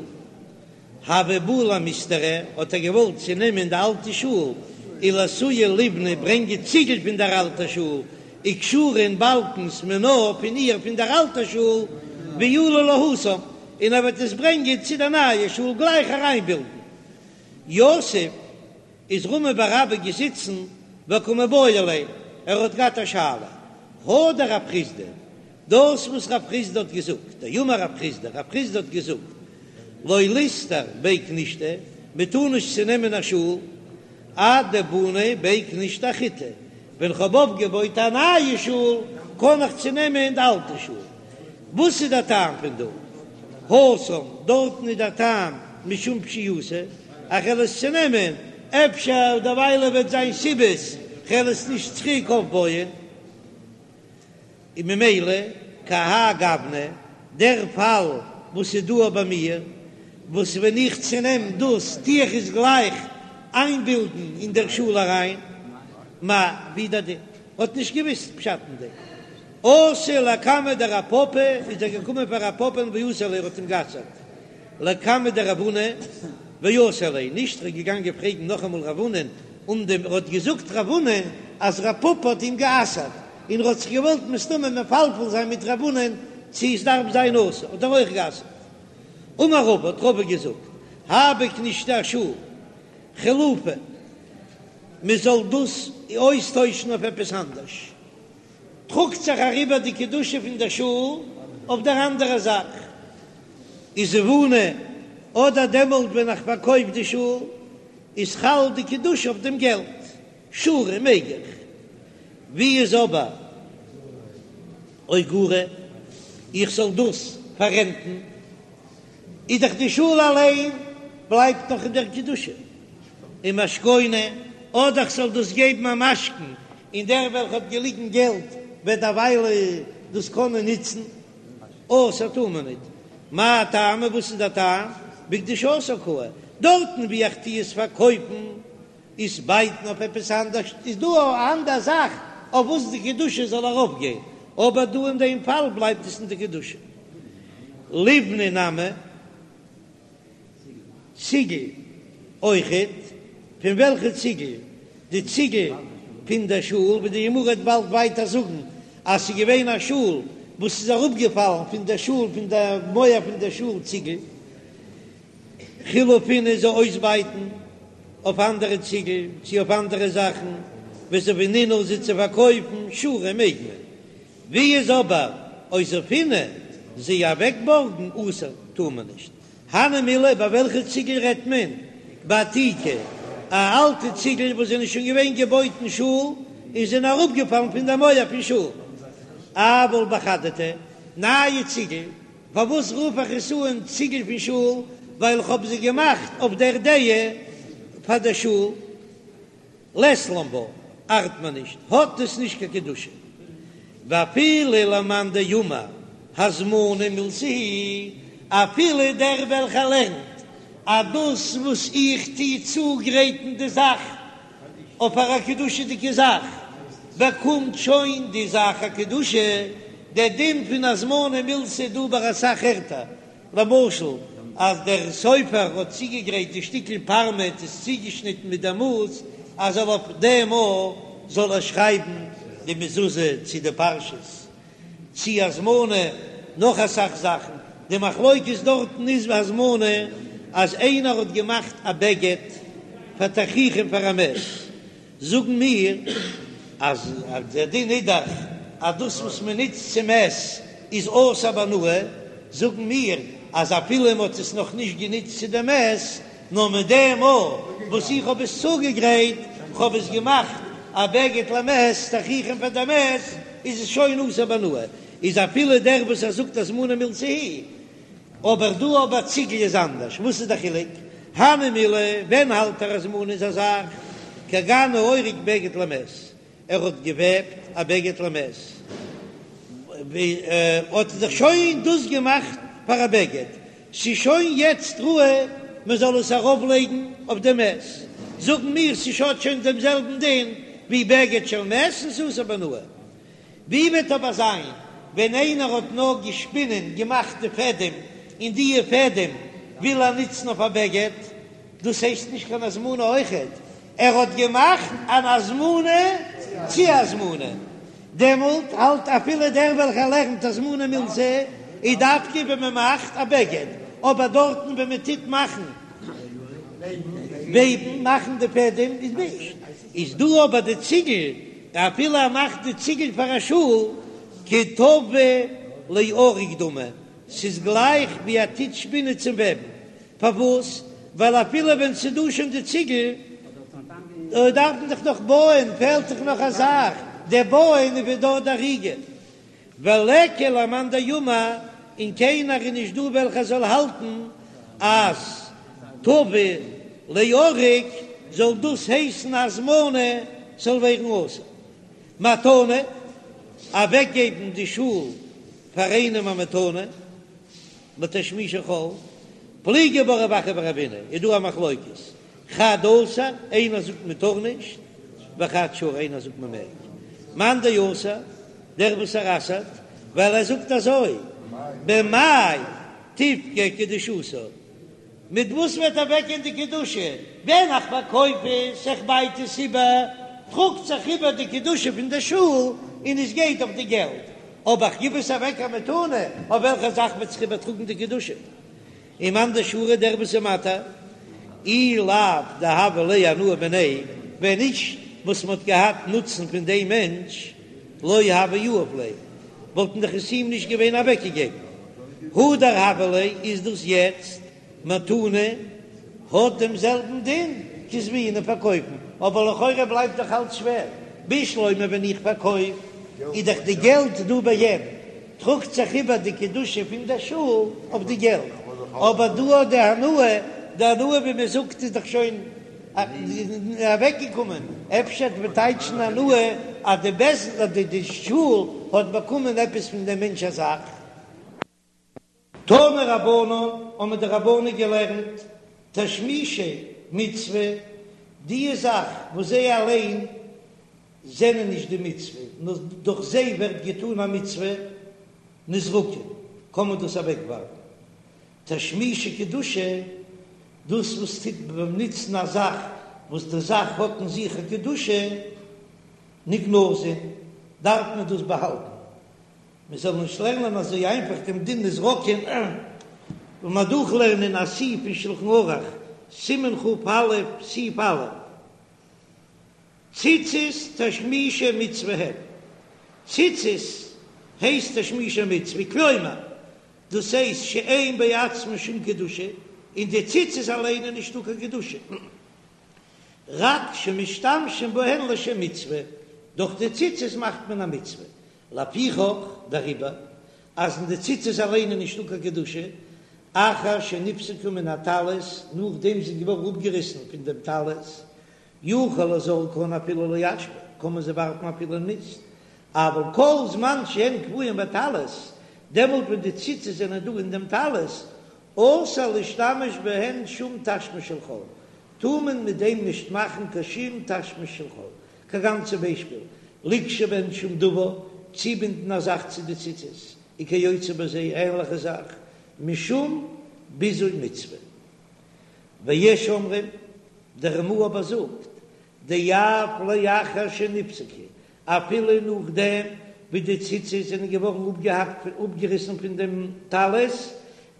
הוה בעי למיסתרא, האט ער געוואלט צונעמען די אלטע שול, ולאתויי ליבני ברענגען ציגל פון דער אלטער שול, וכשורי און באלקנס מינה פון איר פון דער אלטער שול, ועאלי להתם, און ער וועט עס ברענגען צו דער נייער שול גלייך אריינבילדן. יתיב איז רמי בר אבא געזיצן וקא מיבעיא ליה, ער האט געהאט א שאלה, הא דרב חסדא, דאס וואס רב חסדא האט געזאגט, דאמר רב חסדא, רב חסדא האט געזאגט, לא ליסתור בי כנישתא, מען טאר נישט צונעמען א שול, עד דבני בי כנישתא אחריתי, ווען כ'האב אויפגעבויט א נייע שול, קען איך צונעמען די אלטע שול. וואס איז דער טעם פון דא? התם, דארטן איז דער טעם משום פשיעותא, איך וועל עס צונעמען. אפשר דערוויילע וועט זיין סיבות כ'על עס נישט צוריק אויפבויען, און ממילא כהאי גוונא, דער פאל וואס איז דא ביי מיר, וואס ווען איך צונעם דאס טו איך עס גלייך איינבינדן אין דער שול אריין, מאי, ווי דער דין האט נישט געוויסט פשט אין דעם. אתא לקמיה דרב פפא, איז ער געקומען פאר רב פפא'ן ואסר ליה, ער האט אים גע'אסר'ט לקמיה דרב הונא ואסר ליה, נישט ער איז געגאנגען פרעגן נאכאמאל רב הונא'ן, און דעם ער האט געזאגט רב הונא אז רב פפא האט אים גע'אסר'ט, און ער האט זיך געוואלט מסתמא מפלפל זיין מיט רב הונא'ן צו עס דארף זיין אסור, האט ער אויך גע'אסר'ט. אמר רבא, האט רבא געזאגט, האי בכנישתא א שול חילופא, מען זאל דאס אויסטוישן אויף עפעס אנדערש. טראגט זיך אריבער די קדושה פון דער שול אויף דער אנדערע זאך, וזבונה, אדער דעמאלט ווען איך פארקויף די שול, איז חל די קדושה אויף דעם געלט, שרי מעג איך. ווי איז אבער אוגורה, איך זאל דאס פאררענטן, איז דאך די שול אליין בלייבט נאך אין דער קדושה. ומשכונה, אדער כ'זאל דאס געבן א משכון, און דער וועלכע האט געליגן געלט וועט דערווייל דאס קענען נוצן, אסור טאר מען ניט. מאי טעמא, וואס איז דער טעם? בקדושתה קאי, דארטן וואו איך טו עס פארקויפן, עס בייטן אויף עפעס אנדערש, איז דא א אנדער זאך אויף וואס די קדושה זאל ארויפגיין, אבער דא אין דעם פאל בלייבט עס אין די קדושה. ליבנה נמי. ציגל אויכעט, פון וועלכע ציגל? די ציגל פון דער שול, ווי די גמרא וועט באלד ווייטער זאגן אז ס'איז געווען א שול וואס איז אראפגעפאלן פון דער שול, פון דער מויער פון דער שול ציגל, חילופינהו זיי אויסבייטן אויף אנדערע ציגל צו אויף אנדערע זאכן, וזבינינהו זיי צו פארקויפן, שרי מעג מען. ווי איז אבער אוזפינהו זיי אוועקבארגן אסור טאר מען נישט. הני מילי ביי וועלכע ציגל רעדט מען? בעתיקי, א אלטע ציגל וואס זענען שוין געווען געבויט אין שול און זענען אראפגעפאלן פון די מויער פון שול. אבל בחדתי, נייע ציגל, פארוואס רוף איך עס אן ציגל פון שול? ווייל איך האב זיי געמאכט אויף דער דעה פאר דער שול. לית לן בה, ארט מען נישט, האט עס נישט קיין קדושה. ואפילו למאן דאמר הזמנה מילתא היא, אפילו דער וועלכער לערנט אז דאס וואס איך טו צוגרייטן די זאך אויף פאר א קדושה'דיגע זאך, באקומט שוין די זאך א קדושה, דער דין פון הזמנה מילתא איז דא ביי אסאך ערטער, למשל אז דער סופר האט צוגעגרייט די שטיקל פארמעט איז צוגעשניטן מיט דער מאס אז זאל אויף דעם א זאל ער שרייבן די מזוזה צו די פרשות צו הזמנה נאך אסאך זאכן, די מחלוקת דארטן איז ביי הזמנה אז איינער האט געמאכט א בגד פאר תכריכים פאר א מת. זאגן מיר אז דער דין איז דאך אז דאס וואס מען נוצט צום מת איז אסור בהנאה, זאגן מיר אז אפילו מען האט עס נאך נישט גענוצט צו דעם מת, נאר מיט דעם מאל וואס איך האב עס צוגעגרייט, כ'האב עס געמאכט א בגד למת, תכריכים פאר דעם מת, איז עס שוין אסור בהנאה, איז אפילו דער וואס ער זאגט הזמנה מילתא היא אבער דא ביי ציגל איז אנדערש, וואס איז די חילוק? הני מילי, ווען האלט ער הזמנה איז א זאך, כגון האורג בגד למת, ער האט געוועבט א בגד למת, האט ער זיך שוין דאס געמאכט פאר א בגד, ס'איז שוין יעצט ראוי מען זאל עס ארויף לייגן אויף די מת, זאגן מיר ס'האט שוין דעם זעלבן דין ווי בגד של מת און ס'איז אסור בהנאה. ווי וועט אבער זיין ווען איינער האט נאר געשפינען, געמאכט די פעדעם, און דיע פעדעם וויל ער נוצן אויף א בגד, דאס הייסט נישט קיין הזמנה אויכעט, ער האט געמאכט אן הזמנה צו הזמנה, דעמאלט האלט אפילו דער וועלכער לערנט הזמנה מילתא איז דווקא ווען מען מאכט א בגד, אבער דארטן ווען מען טוט מאכן וועבן, מאכן די פעדעם איז נישט, איז דא אבער די ציגל אפילו ער מאכט די ציגל פאר א שול, כטווי לאריג דמי, ס'איז גלייך ווי ער טוט שפינען צום וועבן, פארוואס? ווייל אפילו ווען ס'איז דא שוין די ציגל, דארף מען דאך נאך בויען, פעלט דאך נאך א זאך, דער בויען איז ווי דארט די אריגה. וליכא למאן דאמר, און קיינער איז נישט דא וועלכער זאל האלטן אז טווי לאריג. זאל דאס הייסן הזמנה ס'זאל ווערן אסור. מתנה, אוועקגעבן די שול פאר איינעם א מתנה, לתשמישי חול, פליגי בה רב אחא ורבינא, איז דא א מחלוקת, חד אסר, איינער זאגט מען טאר נישט, וחד שרי, איינער זאגט מען מעג. מאן דאסר, דער וואס ער אסר'ט, ווייל ער זאגט אזוי, במאי תפקע קדושתה, מיט וואס וועט אוועקגיין די קדושה? ווען איך פארקויף עס, איך בייט עס איבער, טראגט זיך איבער די קדושה פון די שול און עס גייט אויף די געלט, אבער איך גיב עס אוועק א מתנה, אויף וועלכע זאך וועט זיך איבערטראגן די קדושה? ומאן דשרי דער וואס איז מתיר, אי לאו דהוה ליה הנאה מיניה, ווען נישט וואס מען האט געהאט נוצן פון דעם מענטש, לא הוה יהיב ליה, וואלטן דאך עס אים נישט געווען אוועקגעגעבן. הדר הוה ליה איז דאס יעצט מתנה האט דעם זעלבן דין כזביני פארקויפן, אבער לכאורה בלייבט דאך אלץ שווער, בשלמא ווען איך פארקויף איז דאך די געלט דא ביי אים, טראגט זיך איבער די קדושה פון דער שול אויף די געלט, אבער דא האט די הנאה, די הנאה ווי מען זאגט איז דאך שוין אוועקגעקומען, אפשר וועט מען טייטשן הנאה אז די בית דין די שול האט באקומען עפעס פון דעם מענטש א זאך. תנו רבנן, האבן די רבנן געלערנט, תשמישי מצוה, די זאך וואס זיי אליין זענען נישט די מצוה, נאר דורך זיי ווערט געטאן א מצוה, נזרקין, קען מען דאס אוועקווארפן. תשמישי קדושה, דאס וואס טוט ביים נוצן א זאך וואס די זאך האט אין זיך א קדושה, נגנזין, דארף מען דאס באהאלטן, מען זאל נישט לערנען אזוי איינפאך דעם דין נזרקין, און מען דורכלערנען א סעיף אין שלחן ערוך, סימן כ"א, סעיף א', ציצית תשמישי מצוה הן, ציצית הייסט תשמישי מצוה, כלומר, דאס הייסט שאין בעצמן שום קדושה, אין די ציצית אליין איז נישטא קיין קדושה, רק שמשתמשים בהן לשם מצוה, דורך די ציצית מאכט מען א מצוה, לפיכך, דעריבער, אז אין די ציצית אליין איז נישטא קיין קדושה, אחר שנפסקו מן הטלית, נאכדעם זיי זענען געווארן אפגעריסן פון דעם טלית, יכול לזורקן אפילו לאשפה, קען מען זיי ווארפן אפילו אין מיסט, אבל כל זמן שהן קבועים בטלית, דעמאלט ווען די ציצית זענען דא אין דעם טלית, אסור להשתמש בהן שום תשמיש של חול, טאר מען מיט דעם נישט מאכן קיין שום תשמיש של חול, כגון צום ביישפיל, לקשור בהן שום דבר, צובינדן א זאך צו די ציצית, וכיוצא בזה, ענליכע זאך, משום ביזוי מצוה. ויש אומרים, דער רמ"א אבער זאגט, דאף לאחר שנפסקו, אפילו נאכדעם ווי די ציצית זענען געווארן אפגעהאקט אפגעריסן פון דעם טלית,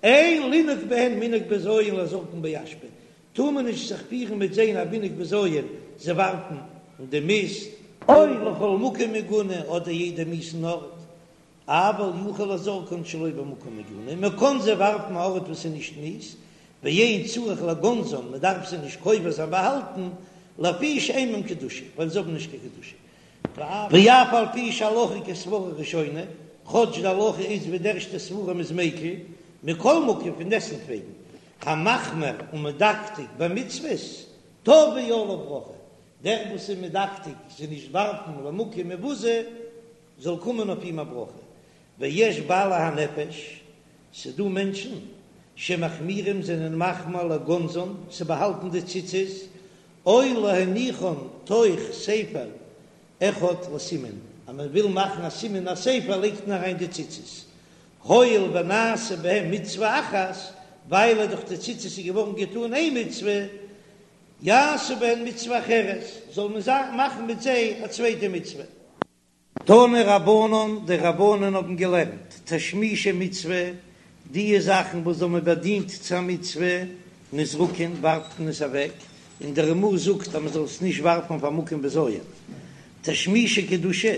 אין לנהוג בהן מנהג בזיון לזורקן באשפה, טאר מען נישט זיך פירן מיט זיי א מנהג בזיון, זיי ווארפן אין די מיסט, או לכל מקום מגונה אדער יעדע מיאוסן ארט, אבל יכול לזורקן שלא במקום מגונה, מען קען זיי ווארפן א ארט וואס איז נישט מיאוס, ואין צריך לגונזן, מען דארף זיי נישט קובר זיין באהאלטן, לפי שאין בהם קדושה, ווייל זיי האבן נישט קיין קדושה. ואף על פי שהלכה כסברה ראשונה, כאטש די הלכה איז ווי די ערשטע סברה מ'איז מיקל, מכל מקום פון דעסטוועגן, המחמיר ומדקדק במצוות, תבוא עליו ברכה, דער וואס איז מדקדק זיי נישט ווארפן למקום מבוזה, זאל קומען אויף אים א ברכה, ויש בעלי הנפש, ס'דא מענטשן שמחמירים זענען מחמיר לגונזן, צו באהאלטן די ציצית, או להניחן תוך ספר אחד לסימן, אז מען וויל מאכן א סימן א ספר לייגט מען אריין די ציצית, הואיל ונעשה בהם מצוה אחת, ווייל דורך די ציצית איז געווארן געטאן איין מצוה, יעשו בהן מצוה אחרת, זאל מען מאכן מיט זיי א צווייטע מצוה. תנו רבנן, די רבנן האבן געלערנט, תשמישי מצוה, די זאכן וואס האבן באדינט צו א מצוה, נזרקין, ווארפט מען עס אוועק, און דער רמ"א זאגט אז מען זאל עס נישט ווארפן אויף א מקום בזיון. תשמישי קדושה,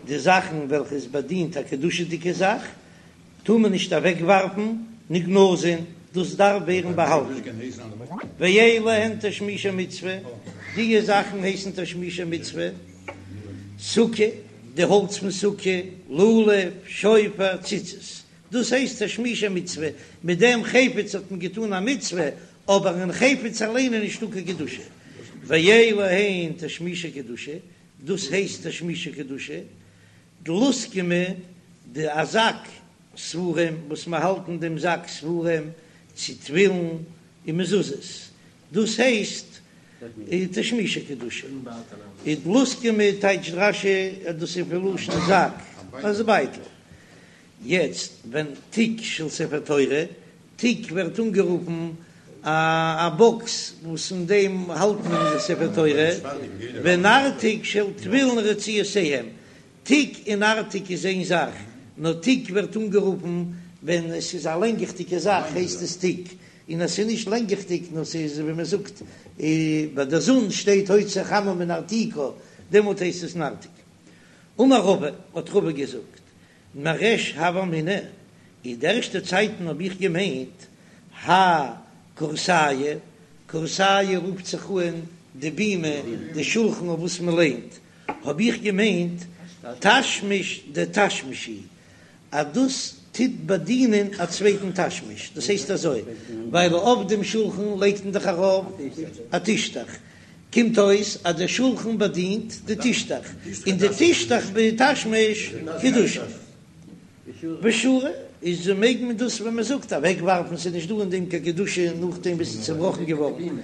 די זאכן וועלכע עס באדינט א קדושה'דיגע זאך, טאר מען נישט אוועק ווארפן, נגנזין, דאס דארף ווערן באהאלטן. ואלו הן תשמישי מצוה, די זאכן הייסן תשמישי מצוה, סוכה, די האלץ פון סוכה, לולב, שופר, ציצית, דאס הייסט תשמישי מצוה, מיט דעם חפץ האט מען געטאן א מצוה, אבער אין חפץ אליין איז נישטא קיין קדושה. ואלו הן תשמישי קדושה, דאס הייסט תשמישי קדושה, דלוסקמי, די א זאק ספרים וואס מען האלט אין דעם זאק ספרים צו תפילין און מזוזות, דאס הייסט תשמישי קדושה. און דלוסקמי טייטשט רש"י אז דאס איז פון לשון זאק, אז בייטל. יעצט ווען תיק של ספר תורה, תיק ווערט אנגערופן א באקס וואס אין דעם האלט מען די ספר תורה, ונרתיק של תפילין ורצועותיהם, תיק און נרתיק איז איין זאך, נאר תיק ווערט אנגערופן ווען עס איז א לענגעכדיגע זאך הייסט עס תיק, און אז ס'איז נישט לענגעכדיג נאר ס'איז ווי מען זאגט ביי די זון שטייט הוציא חמה מנרתיקה דעמאלט הייסט עס נרתיק. אמר רבא, האט רבא געזאגט, מריש הוה אמינא, אין די ערשטע צייטן האב איך געמיינט, האי כורסייא, כורסייא רופט זיך אן די בימה, די שולחן אויף וואס מען ליינט, האב איך געמיינט תשמיש דתשמיש הוא, אז דאס טוט באדינען א צווייטן תשמיש, דאס הייסט אזוי, ווייל אויף דעם שולחן לייגט מען דאך ארויף א טישטעך, קומט אויס אז דער שולחן באדינט די טישטעך, און די טישטעך בתשמיש קדושה. ושרי, איז מעג מען דאס ווען מען זאגט אוועק ווארפן, ס'איז נישט דא אין דעם קיין קדושה נאכדעם וואס ס'איז צובראכן געווארן,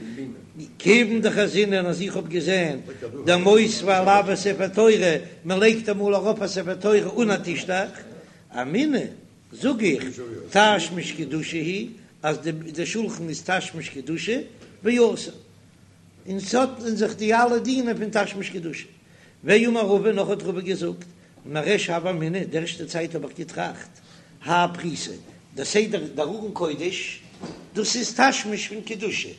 כיוון דחזינן אז איך האב געזען דמותבי עילויה ספר תורה, מען לייגט אמאל ארויף א ספר תורה אן א טישטעך, אמינא זאג איך תשמיש קדושה הוא, אז די שולחן איז תשמיש קדושה ואסור. און ס'האט אין זיך די אלע דינים פון תשמיש קדושה. ואמר רבא, נאך האט רבא געזאגט, מריש הוה אמינא, די ערשטע צייט האב איך געטראכט, האי פריסא, דער סדר דער ארון קודש, דאס איז תשמיש פון קדושה,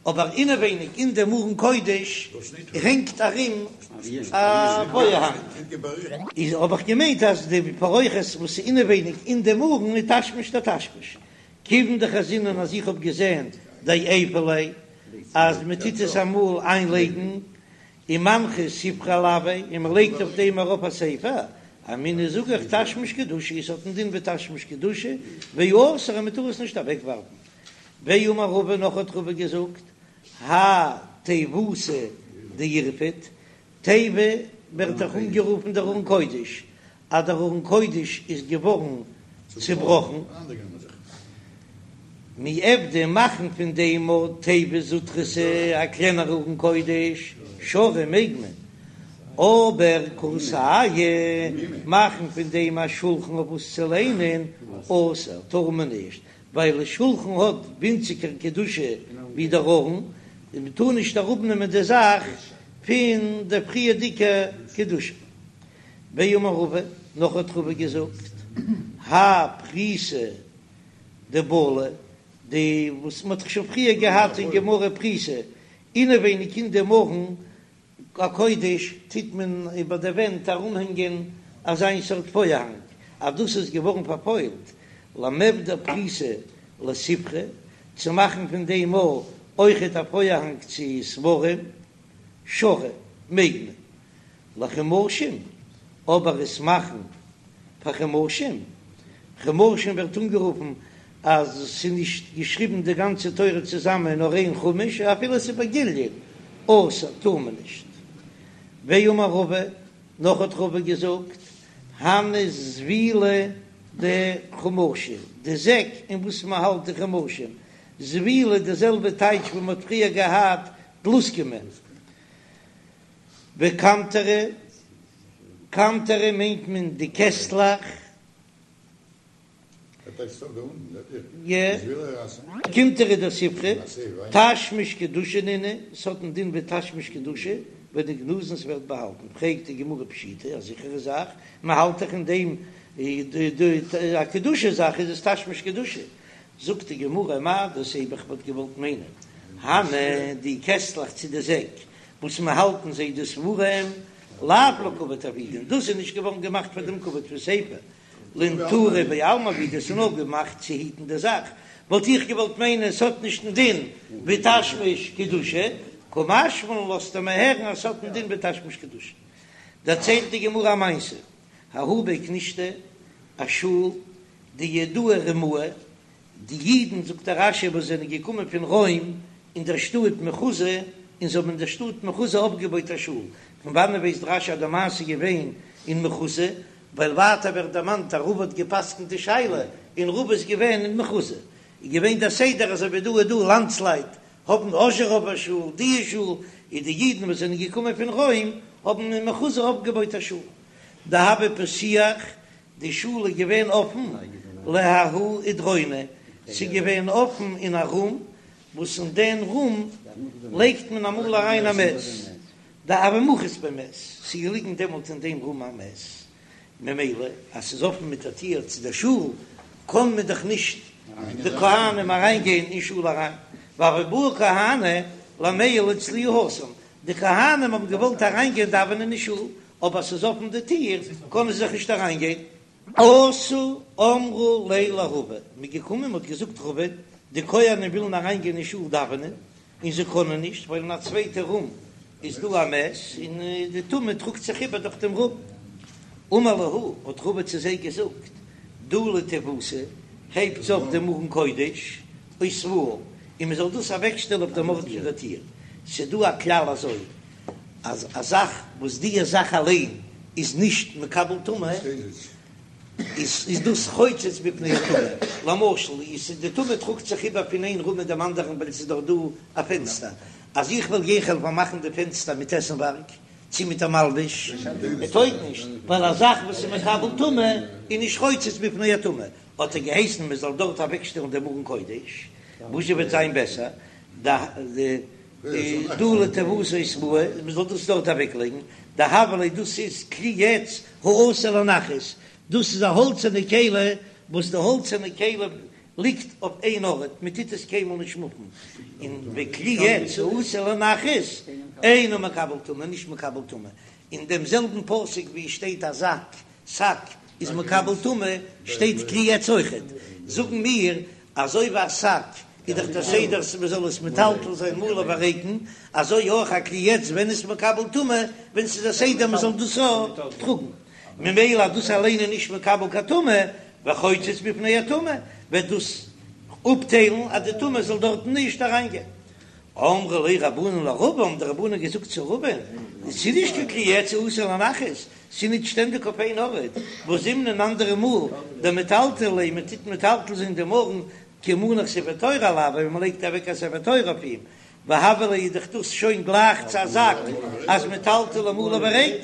אבער אינעווייניג אין דעם ארון קודש הענגט ארום א פארהאנג, איז האב איך געמיינט אז די פרוכת וואס איז אינעווייניג אין דעם ארון איז תשמיש דתשמיש, כיוון דחזינן אז איך האב געזען דעיפי ליה אז מען טוט עס אמאל איינלייגן ומנחי ספרא עילויה און מען לייגט אויף דעם ארויף א ספר, אמינא זאג איך תשמיש קדושה עס האט א דין ווי תשמיש קדושה ואסור און מען טאר עס נישט אוועקווארפן. ואמר רבא נאך האט רבא געזאגט האי תיבותא דאירפט תיבה ווערט דאך אנגערופן דער ארון קודש, אז דער ארון קודש איז געווארן צובראכן, מיעבדא מאכן פון דעם א תיבה זוטרתא א קלענערע ארון קודש, שרי מעג מען, אבער כורסייא מאכן פון דעם א שולחן אויף וואס צו ליינען, אסור, טאר מען נישט, ווייל שולחן האט ווינציגער קדושה ווי דער ארון, און מען טאר נישט אראפנעמען די זאך פון די פריערדיגע קדושה. ואמר רבא, נאך האט רבא געזאגט, האי פריסא דבלי, די וואס מען האט דאך שוין פריער געהאט אין גמרא פריסא, אינעווייניג אין דעם ארון הקודש טוט מען איבער די ווענט ארומהענגען אזיין סארט פארהאנג, אז דאס איז געווארן פארפוילט, למיעבד פריסא לספרי, צו מאכן פון דעם אויכעט א פארהאנג צו ספרים, שרי, מעג מען. לחומשים, אבער עס מאכן פאר חומשים, חומשים ווערט אנגערופן אז ס'איז נישט געשריבן די גאנצע תורה צוזאמען נאר איין חומש, אפילו ס'איז בגיליון, אסור, טאר מען נישט. ואמר רבא, נאך האט רבא געזאגט, הני זבילי דחומשי, די זעק אין וואס מען האלט די חומשים, זבילי די זעלבע טייטש ווי מען האט פריער געהאט דלוסקמי. וקמטרי, קמטרי מיינט מען די קעסטלעך. קמטרי דספרי, תשמיש קדושה נינהו, ס'האט א דין ווי תשמיש קדושה, ונגנזין ס'ווערט באהאלטן, פרעגט די גמרא פשיטא, א זיכערע זאך, מ'האלט דאך אין דעם א קדושה זאך איז עס תשמיש קדושה, זאגט די גמרא מהו דתימא איך וואלט געוואלט מיינען, הני די קעסטלעך צו די זעק וואס מ'האלט אין זיי די ספרים, לאו לכבוד עבידן, דאס איז נישט געווארן געמאכט פאר דעם כבוד פון ספר, לנטורי בעלמא עבידי, ס'איז נאר געמאכט צו היטן די זאך, וואלט איך געוואלט מיינען ס'האט נישט דעם דין ווי תשמיש קדושה, קא משמע לן לאזט ער מיר הערן אז ס'האט דעם דין ווי תשמיש קדושה. דערציילט די גמרא א מעשה, ההוא בי כנישתא, א שול, דיהודאי רומאי, די אידן, זאגט דער רש"י, וואס זענען געקומען פון רוים אין דער שטאט מחוזא. און זיי האבן אין דער שטאט מחוזא אויפגעבויט א שול. פון וואנען ווייסט רש"י אז די מעשה איז געווען אין מחוזא? ווייל ווייטער ווערט דערמאנט אז רבא האט גע'פסק'נט די שאלה, און רבא איז געווען אין מחוזא. איז געווען דער סדר אזוי ווי דא איז דא לאנדסלייט האבן אזשעראווער שול, די שול, איז די אידן וואס זענען געקומען פון רוים האבן אין מחוזא אויפגעבויט א שול. דהוה פתיח, די שול איז געווען אפן לההוא אידרונא, ס'איז געווען אפן אין א רום, וואס אין דעם רום לייגט מען אמאל אריין א מת, דהוה מחית ביה מת, ס'איז געליגן דעמאלט אין דעם רום א מת, ממילא אז ס'איז אפן מיט א טיר צו דער שול, קען מען דאך נישט די כהנים אריין גיין אין שול אריין, והוו בעו כהני למיעל אצלהו התם, די כהנים האבן געוואלט אריין גיין דאווענען אין שול, אבער ס'איז אפן די טיר קענען זיי זיך נישט אריין גיין. אתו אמרו ליה לרבא, מ'איז געקומען מ'האט געזאגט רבא, די כהנים ווילן אריין גיין אין שול דאווענען, און זיי קענען נישט ווייל אין א צווייטע רום איז דא א מת און די טומאה טראגט זיך איבער דורך דעם רום. אמר להו, האט רבא צו זיי געזאגט, דלו תיבותא, הייבטס אויף דעם ארון קודש, אותבוה, און מען זאל דאס אוועקשטעלן אויף דעם ארט פון דער טיר. ס'איז דא א כלל אזוי, אז א זאך וואס די זאך אליין איז נישט מקבל טומאה, איז דאס חוצץ בפני הטומאה, למשל איז די טומאה טראגט זיך איבער פון איין רום אין דעם אנדערן ווייל עס איז דאך דא א פענסטער, אז איך וועל גיין כ'וועל פארמאכן די פענסטער מיט עסנווארג צי מיט א מלבוש, עס טויג נישט, ווייל א זאך וואס איז מקבל טומאה איז נישט חוצץ בפני הטומאה, האט ער געהייסן מען זאל דארט אוועקשטעלן דעם ארון קודש, וואס וועט זיין בעסער, דלו תיבותא אותבוה, מען זאל דאס דארט אוועקלייגן, דהוה ליה דאס איז כלי עץ העשוי לנחת, דאס איז א האלצערנע כלי וואס די האלצערנע כלי ליגט אויף איין ארט, מען טוט עס קיינמאל נישט מופן, און וכלי עץ העשוי לנחת אינו מקבל טומאה, נישט מקבל טומאה, אין דעם זעלבן פסוק ווי עס שטייט א זאק, שק, איז מקבל טומאה, שטייט כלי עץ אויכעט, זאגן מיר אזוי ווי א שק איז דאך דער סדר אז מען זאל עס מטלטל זיין מלא וריקן, אזוי אויך א כלי עץ ווען איז מקבל טומאה ווען ס'איז א סדר מען זאל דאס טראגן, ממילא אז דאס אליין איז נישט מקבל קיין טומאה, וחוצץ בפני הטומאה, וועט דאס אפטיילן אז די טומאה זאל דארטן נישט אריינגיין. אמרו ליה רבנן לרבא, האבן די רבנן געזאגט צו רבא'ן, ס'איז נישט קיין כלי עץ העשוי לנחת, ס'איז נישט שטענדיג אויף איין ארט, והא זימנין אנדערע מאל דמטלטלי ליה, מען טוט מטלטל זיין דעם ארון כי מנח ספר תורה עילויה, ווען מען לייגט אוועק א ספר תורה אויף אים, והוה ליה איז דאך דאס שוין גלייך צו א זאק אז מטלטלי מלא וריק,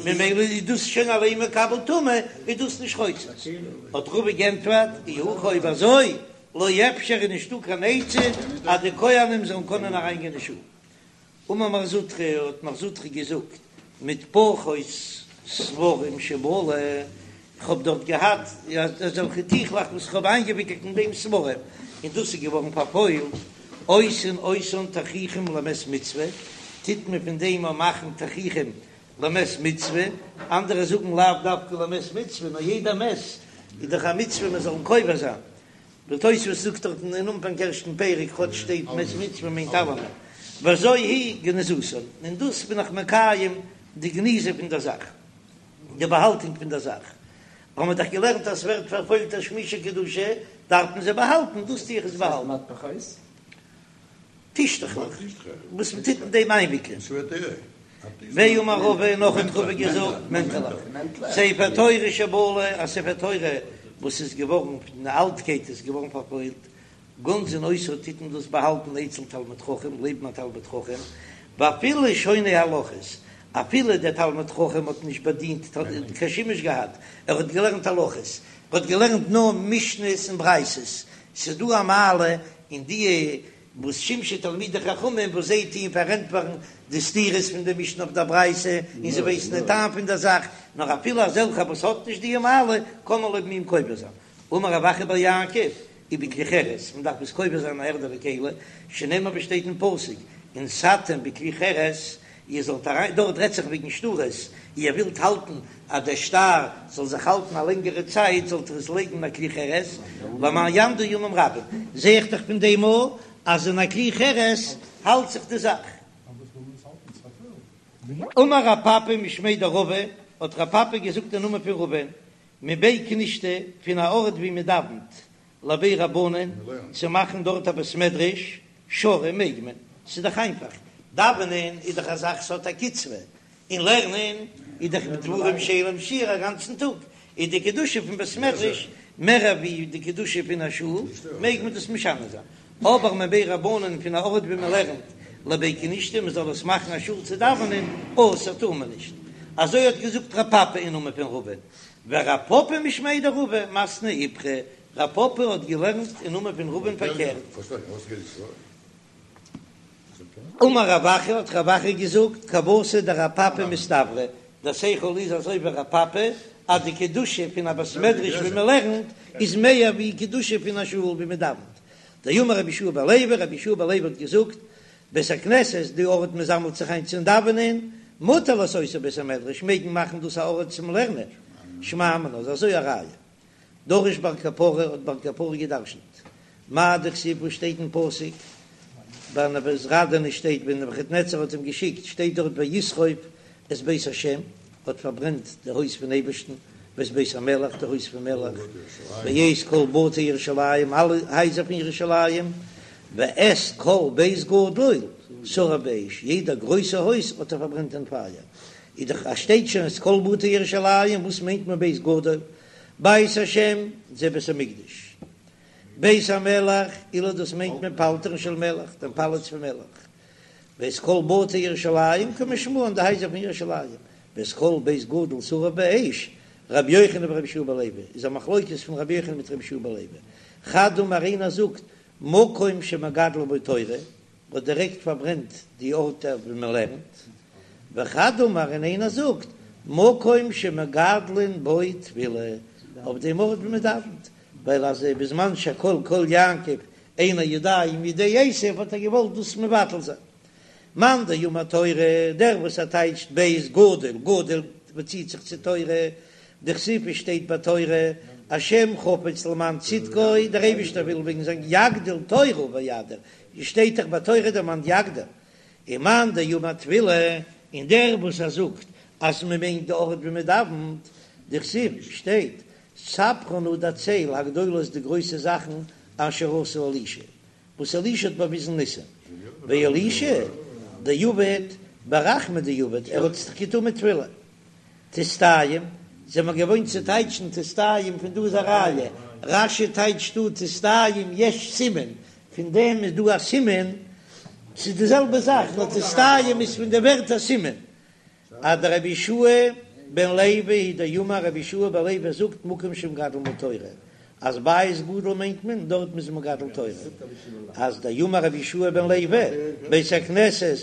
ממילא איז דאס שוין אליין מקבל טומאה, איז דאס נישט חוצץ. האט רבא גענטפערט, אי הכי אויב אזוי, לא אפשר איז נישטא קיין עצה אז די כהנים זאלן קענען אריינגיין אין שול. אמר מר זוטרא, האט מר זוטרא געזאגט, מטפחות ספרים שבלו, איך האב דארט געהאט אזעלכע טיכלעך וואס איך האב איינגעוויקלט אין דעם ספרים, און דאס איז געווארן פארפוילט, עושין אותן תכריכים למת מצוה, טוט מען פון דעם אויך מאכן תכריכים למת מצוה, אנדערע זאגן לאו דווקא למת מצוה, נאר יעדע מת איז דאך א מצוה מען זאל אים קובר זיין, די תוספות זאגט דארטן אין אנפאנג ערשטן פרק כאטש שטייט מת מצוה מיינט אלעמען, וזו היא גניזתן, און דאס בין איך מקיים די גניזה פון דער זאך, די באהאלטונג פון דער זאך, האבן מיר דאך געלערנט אז ס'ווערט פארפוילט תשמישי קדושה דארף מען זיי באהאלטן, דאס טו איך עס באהאלטן. טישטעכלעך וואס מען טוט אין דעם איינוויקלען. ואמר רבא נאך האט רבא געזאגט מענטעלעך, ספר תורה שבלה, א ספר תורה וואס איז געווארן פון די אלטקייט איז געווארן פארפוילט, גונזין אותו טוט מען דאס באהאלטן אצל תלמיד חכם לעבן א תלמיד חכם, ואפילו שונה הלכות, אפילו דער תלמיד חכם האט נישט באדינט קיין שימוש געהאט, ער האט געלערנט הלכות, ער האט געלערנט נאר משניות און ברייתות, ס'איז דא א מעלה אין די וואס שמשו תלמידי חכמים וואס זיי טוען פארענטפערן די סתירות פון די משנה אויף דער ברייתא און זיי ווייסן די טעם פון דער זאך, נאר אפילו אזעלכע וואס האט נישט די מעלה קען מען לעבן אים קובר זיין. אמר רב אחא בר יעקב, ובכלי חרס, מען דארף עס קובר זיין אין א ערדענע כלי, שנאמר ווי שטייט אין פסוק, ונתתם בכלי חרס, איר זאלט אריין, דארט רעדט זיך וועגן שטרות, איר ווילט האלטן אז דער שטר זאל זיך האלטן א לענגערע צייט, זאלט איר עס לייגן אין א כלי חרס, למען יעמדו ימים רבים, זע איך דאך פון דעם אויך אז אין א כלי חרס האלט זיך די זאך. אמר רב פפא משמיה דרבא, האט רב פפא געזאגט אין נאמען פון רבא'ן, מבי כנישתא, פון א ארט ווי מען דאווענט, לבי רבנן, צו מאכן דארט א בית מדרש, שרי מעג מען, ס'איז דאך איינפאך. דאווענען איז דאך א זאך ס'האט א קצבה, און לערנען איז דאך דברים שאין להם שיעור א גאנצן טאג, איז די קדושה פון בית מדרש מער ווי די קדושה פון א שול, מעג מען דאס משנה זיין. אבער מבי רבנן פון א ארט ווי מען לערנט לבי כנישתא מען זאל עס מאכן א שול צו דאווענען, אסור טאר מען נישט. אזוי האט געזאגט רב פפא אין נאמען פון רבא'ן, ורב פפא משמיה דרבא מתני איפכא, רב פפא האט געלערנט אין נאמען פון רבא'ן פארקערט. אמר רב אחא האט רב אחא געזאגט כוותיה דרב פפא מסתברא, דער שכל איז אזוי ווי רב פפא אז די קדושה פון א בית מדרש ווי מען לערנט איז מער ווי קדושה פון א שול ווי מען דאווענט. דאמר רבי יהושע בן לוי, רבי יהושע בן לוי האט געזאגט, בית הכנסת, די ארט מען זאמלט זיך איין צום דאווענען, מותר לעשותו בית המדרש, מעג מען מאכן דאס א ארט צום לערנען, שמע מינה איז אזוי א ראיה. דרש בר קפרא האט בר קפרא געדרשנט מאי דכתיב וואס שטייט אין פסוק ביי נבוזראדן שטייט ווען נבוכדנצר האט אים געשיקט שטייט דארט וישרוף את בית השם האט פארברענט די הויז פון אייבערשטן ואת בית המלך די הויז פון מלך ואת כל בתי ירושלים אלע הייזער פון ירושלים ואת כל בית גדול שרף באש יעדע גרויסע הויז האט ער פארברענט אין פייער איז דאך אז שטייט שוין את כל בתי ירושלים וואס מיינט מען בית גדול בית השם זה בית המקדש, בית המלך אלו דאס מיינט מען פלטרין של מלך, דעם פאלאץ פון מלך, ואת כל בתי ירושלים כמשמען די הייזער פון ירושלים, ואת כל בית גדול שרף באש, רבי יוחנן ורבי יהושע בן לוי, איז א מחלוקת פון רבי יוחנן מיט רבי יהושע בן לוי, חד אמר איינער זאגט מקום שמגדלין בו תורה, האט דירעקט פארברענט די ארט ווי מען לערנט, וחד אמר און איינער זאגט מקום שמגדלין בו תפילה, אויף דעם ארט ווי מען דאווענט, ווייל אז בזמן שהקול קול יעקב אין הידיים ידי עשיו האט ער געוואלט דאס מבטל זיין. מאן דאמר תורה, דער וואס ער טייטשט בית גדול, גדול באציט זיך צו תורה, דכתיב עס שטייט ביי תורה, השם חפץ למען צדקו, דער אייבישטער וויל וועגן זיין יגדיל תורה ויאדיר, שטייט דאך ביי תורה דערמאנט יגדיל, ומאן דאמר תפילה, און דער וואס ער זאגט אז מען מיינט די ארט ווי מען דאווענט, דכתיב שטייט, ספרה נא דערצייל הגדולות די גרויסע זאכן אשר עשה אלישע, וואס אלישע האט באוויזן ניסים, ואלישע דעבד ברחמי דעבד, ער האט עס דאך געטון מיט תפילה. תסתיים, זעמער געוואוינט צו טייטשן תסתיים פון דא איז א ראיה, רש"י טייטשט דא תסתיים יש סימן, פון דעם איז דא א סימן, ס'איז די זעלבע זאך נאר תסתיים איז פון די ווערטער סימן, אז דרבי יהושע בן לוי הוא דאמר רבי יהושע בן לוי זאגט מקום שמגדלין בו תורה, אז בית גדול מיינט מען דארט מ'איז מגדל תורה, אז דאמר רבי יהושע בן לוי בית הכנסת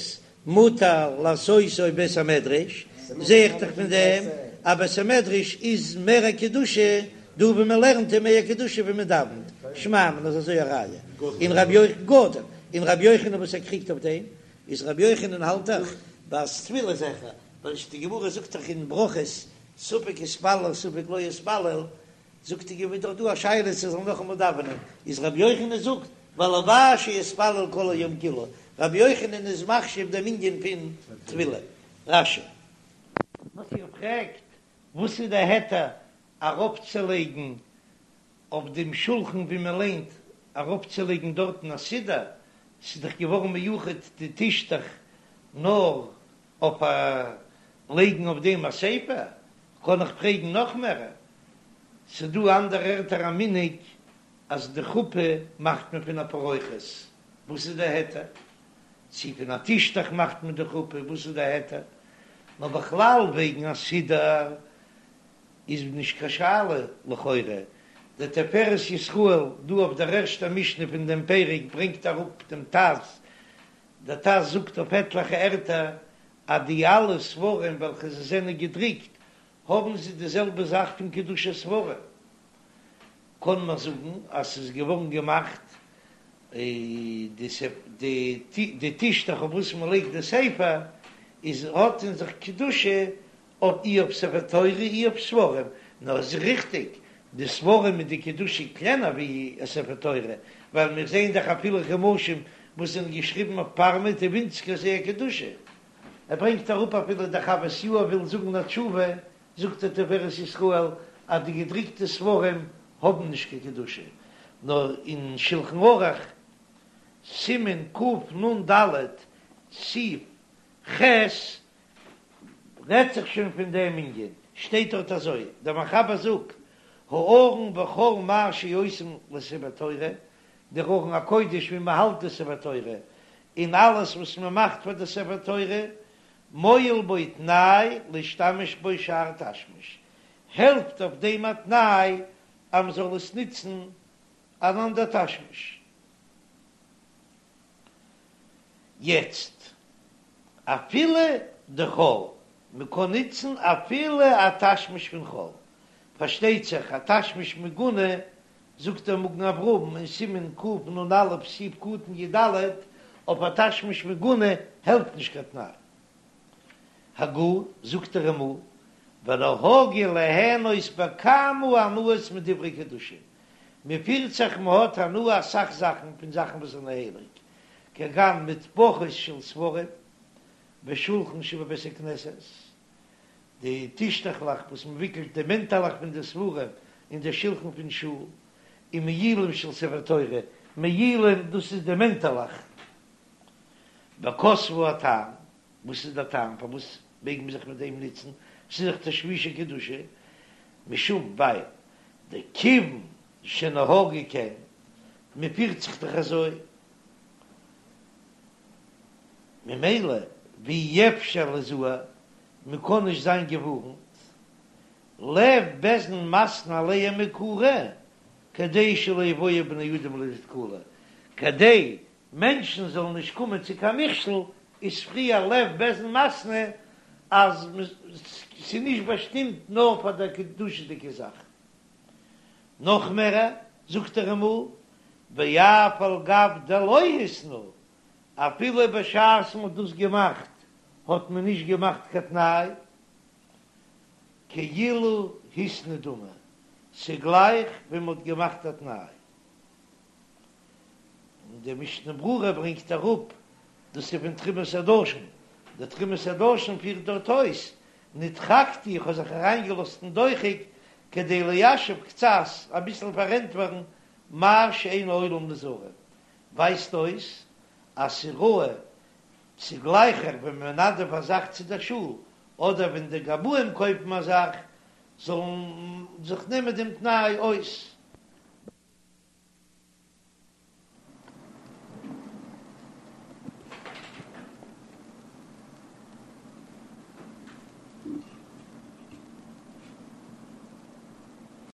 מותר לעשותו בית המדרש, זע איך דאך פון דעם אז בית המדרש איז מער א קדושה דא ווי מען לערנט איז מער קדושה ווי מען דאווענט, שמע מינה איז אזוי א ראיה, און רבי יוחנן גדול, און רבי יוחנן וואס ער קריגט אויף דעם, איז רבי יוחנן האלט דאך אז תפילה איז העכער, ווייל די גמרא זאגט דאך אין ברכות ספק התפלל ספק לא התפלל, זאגט די גמרא דאך דא א שאלה צו זאל נאכאמאל דאווענען, איז רבי יוחנן זאגט והלוואי שיתפלל כל היום כולו, רבי יוחנן איז מחשיב דעם ענין פון תפילה. רש"י. וואס איר פרעגט וואס איז די היתר ארויפצולייגן אויף דעם שולחן ווי מען ליינט ארויפצולייגן דארטן א סידור, ס'איז דאך געווארן מיוחד די טישטעך נאר אויף א לייגן אויף דעם א ספר, קען איך פרעגן נאך מער, ס'דא אנדערע ערטער א מנהג אז די חופה מאכט מען פון א פרוכת, וואס איז די היתר? צו פון א טישטעך מאכט מען די חופה, וואס איז די היתר? נאר בכלל וועגן א סידור איז נישט קיין שאלה לכאורה, דער תפארת ישראל דא אויף דער ערשטער משנה פון דעם פרק ברענגט אראפ דעם ט"ז, דער ט"ז זאגט אויף עטליכע ערטער אז די אלע ספרים וועלכע זיי זענען געדרוקט האבן זיי די זעלבע זאך פון קדושת ספרים, קען מען זאגן אז ס'איז געווארן געמאכט די טישטעך אויף וואס מען לייגט די ספר איז האט אין זיך קדושה אויף אי אויף ספר תורה אי אויף ספרים, נאר עס איז ריכטיג די ספרים איז די קדושה קלענער ווי א ספר תורה, ווייל מיר זעען דאך אפילו חומשים וואס זענען געשריבן אויף פארמעט איז ווינציגער זייער קדושה. ער ברענגט אראפ אפילו דער חוות יאיר וויל זאגן א תשובה, זאגט דער תפארת ישראל אז די געדריקטע ספרים האבן נישט קיין קדושה, נאר אין שלחן ערוך סימן קנ"ד. סעיף ח' רעדט זיך שוין פון דעם ענין, שטייט דארט אזוי, דער מחבר זאגט, הארון וכל מה שעושים לספר תורה, דער ארון הקודש ווי מען האלט די ספר תורה, און אלעס וואס מען מאכט פאר די ספר תורה, מועיל בו תנאי להשתמש בו שאר תשמיש, העלפט אויף דעם א תנאי אז מען זאל עס נוצן אן אנדער תשמיש. יעצט אפילו דחול, מען קען נוצן אפילו א תשמיש פון חול, פארשטייט זיך א תשמיש מגונה, זאגט דער מגן אברהם אין סימן קנ"א סעיף קטן י"ד, אויף א תשמיש מגונה העלפט נישט קיין תנאי. הגה, זאגט דער רמ"א, ונהגו ליהנות בכמה הנאות מדברי קדושה, מען פירט זיך מען האט הנאה אסאך זאכן פון זאכן וואס זענען הייליג, כגון מטפחות של ספרים ושולחן שבבית הכנסת, די טישטעכלעך וואס מען וויקלט די מענטעלעך פון די ספרים און די שולחן פון שול, און מעילים של ספר תורה, מעילים דאס איז די מענטעלעך. וכתבו הטעם, וואס איז דער טעם פארוואס מעג מען זיך מיט דעם נוצן, ס'איז דאך תשמישי קדושה, משום ווייל דכיוון שנהגו כן, מען פירט זיך דאך אזוי, ממילא ואי אפשר ליזהר, מען קען נישט זיין געווארנט, לב בית דין מתנה עליהם מעיקרא, כדי שלא יבואו בני אדם לידי תקלה, כדי מענטשן זאלן נישט קומען צו קיין מכשול, איז פריער לב בית דין מתנה אז ס'איז נישט באשטימט נאר פאר דער קדושה'דיגע זאך. נאך מער, זאגט דער רמ"א, ואף על גב דלא התנו, אפילו בשעת מ'האט דאס געמאכט האט מען נישט געמאכט קיין תנאי, כאילו התנו דמי, ס'גלייך ווי מ'האט געמאכט א תנאי. און די משנה ברורה ברענגט אראפ דאס איז פון תרומת הדשן, די תרומת הדשן פירט דארט אויס, נדחקתי איך האב זיך אריינגעלאזט אין דוחק כדי ליישב קצת אביסל פארענטפערן מה שאין העולם נזהרים, ווייזט אויס אז ס'ראוי ס'איז גלייכער ווען מ'מנדב א זאך צו דער שול אדער ווען די גבאים קויפן א זאך זאלן זיך נעמען דעם תנאי אויס.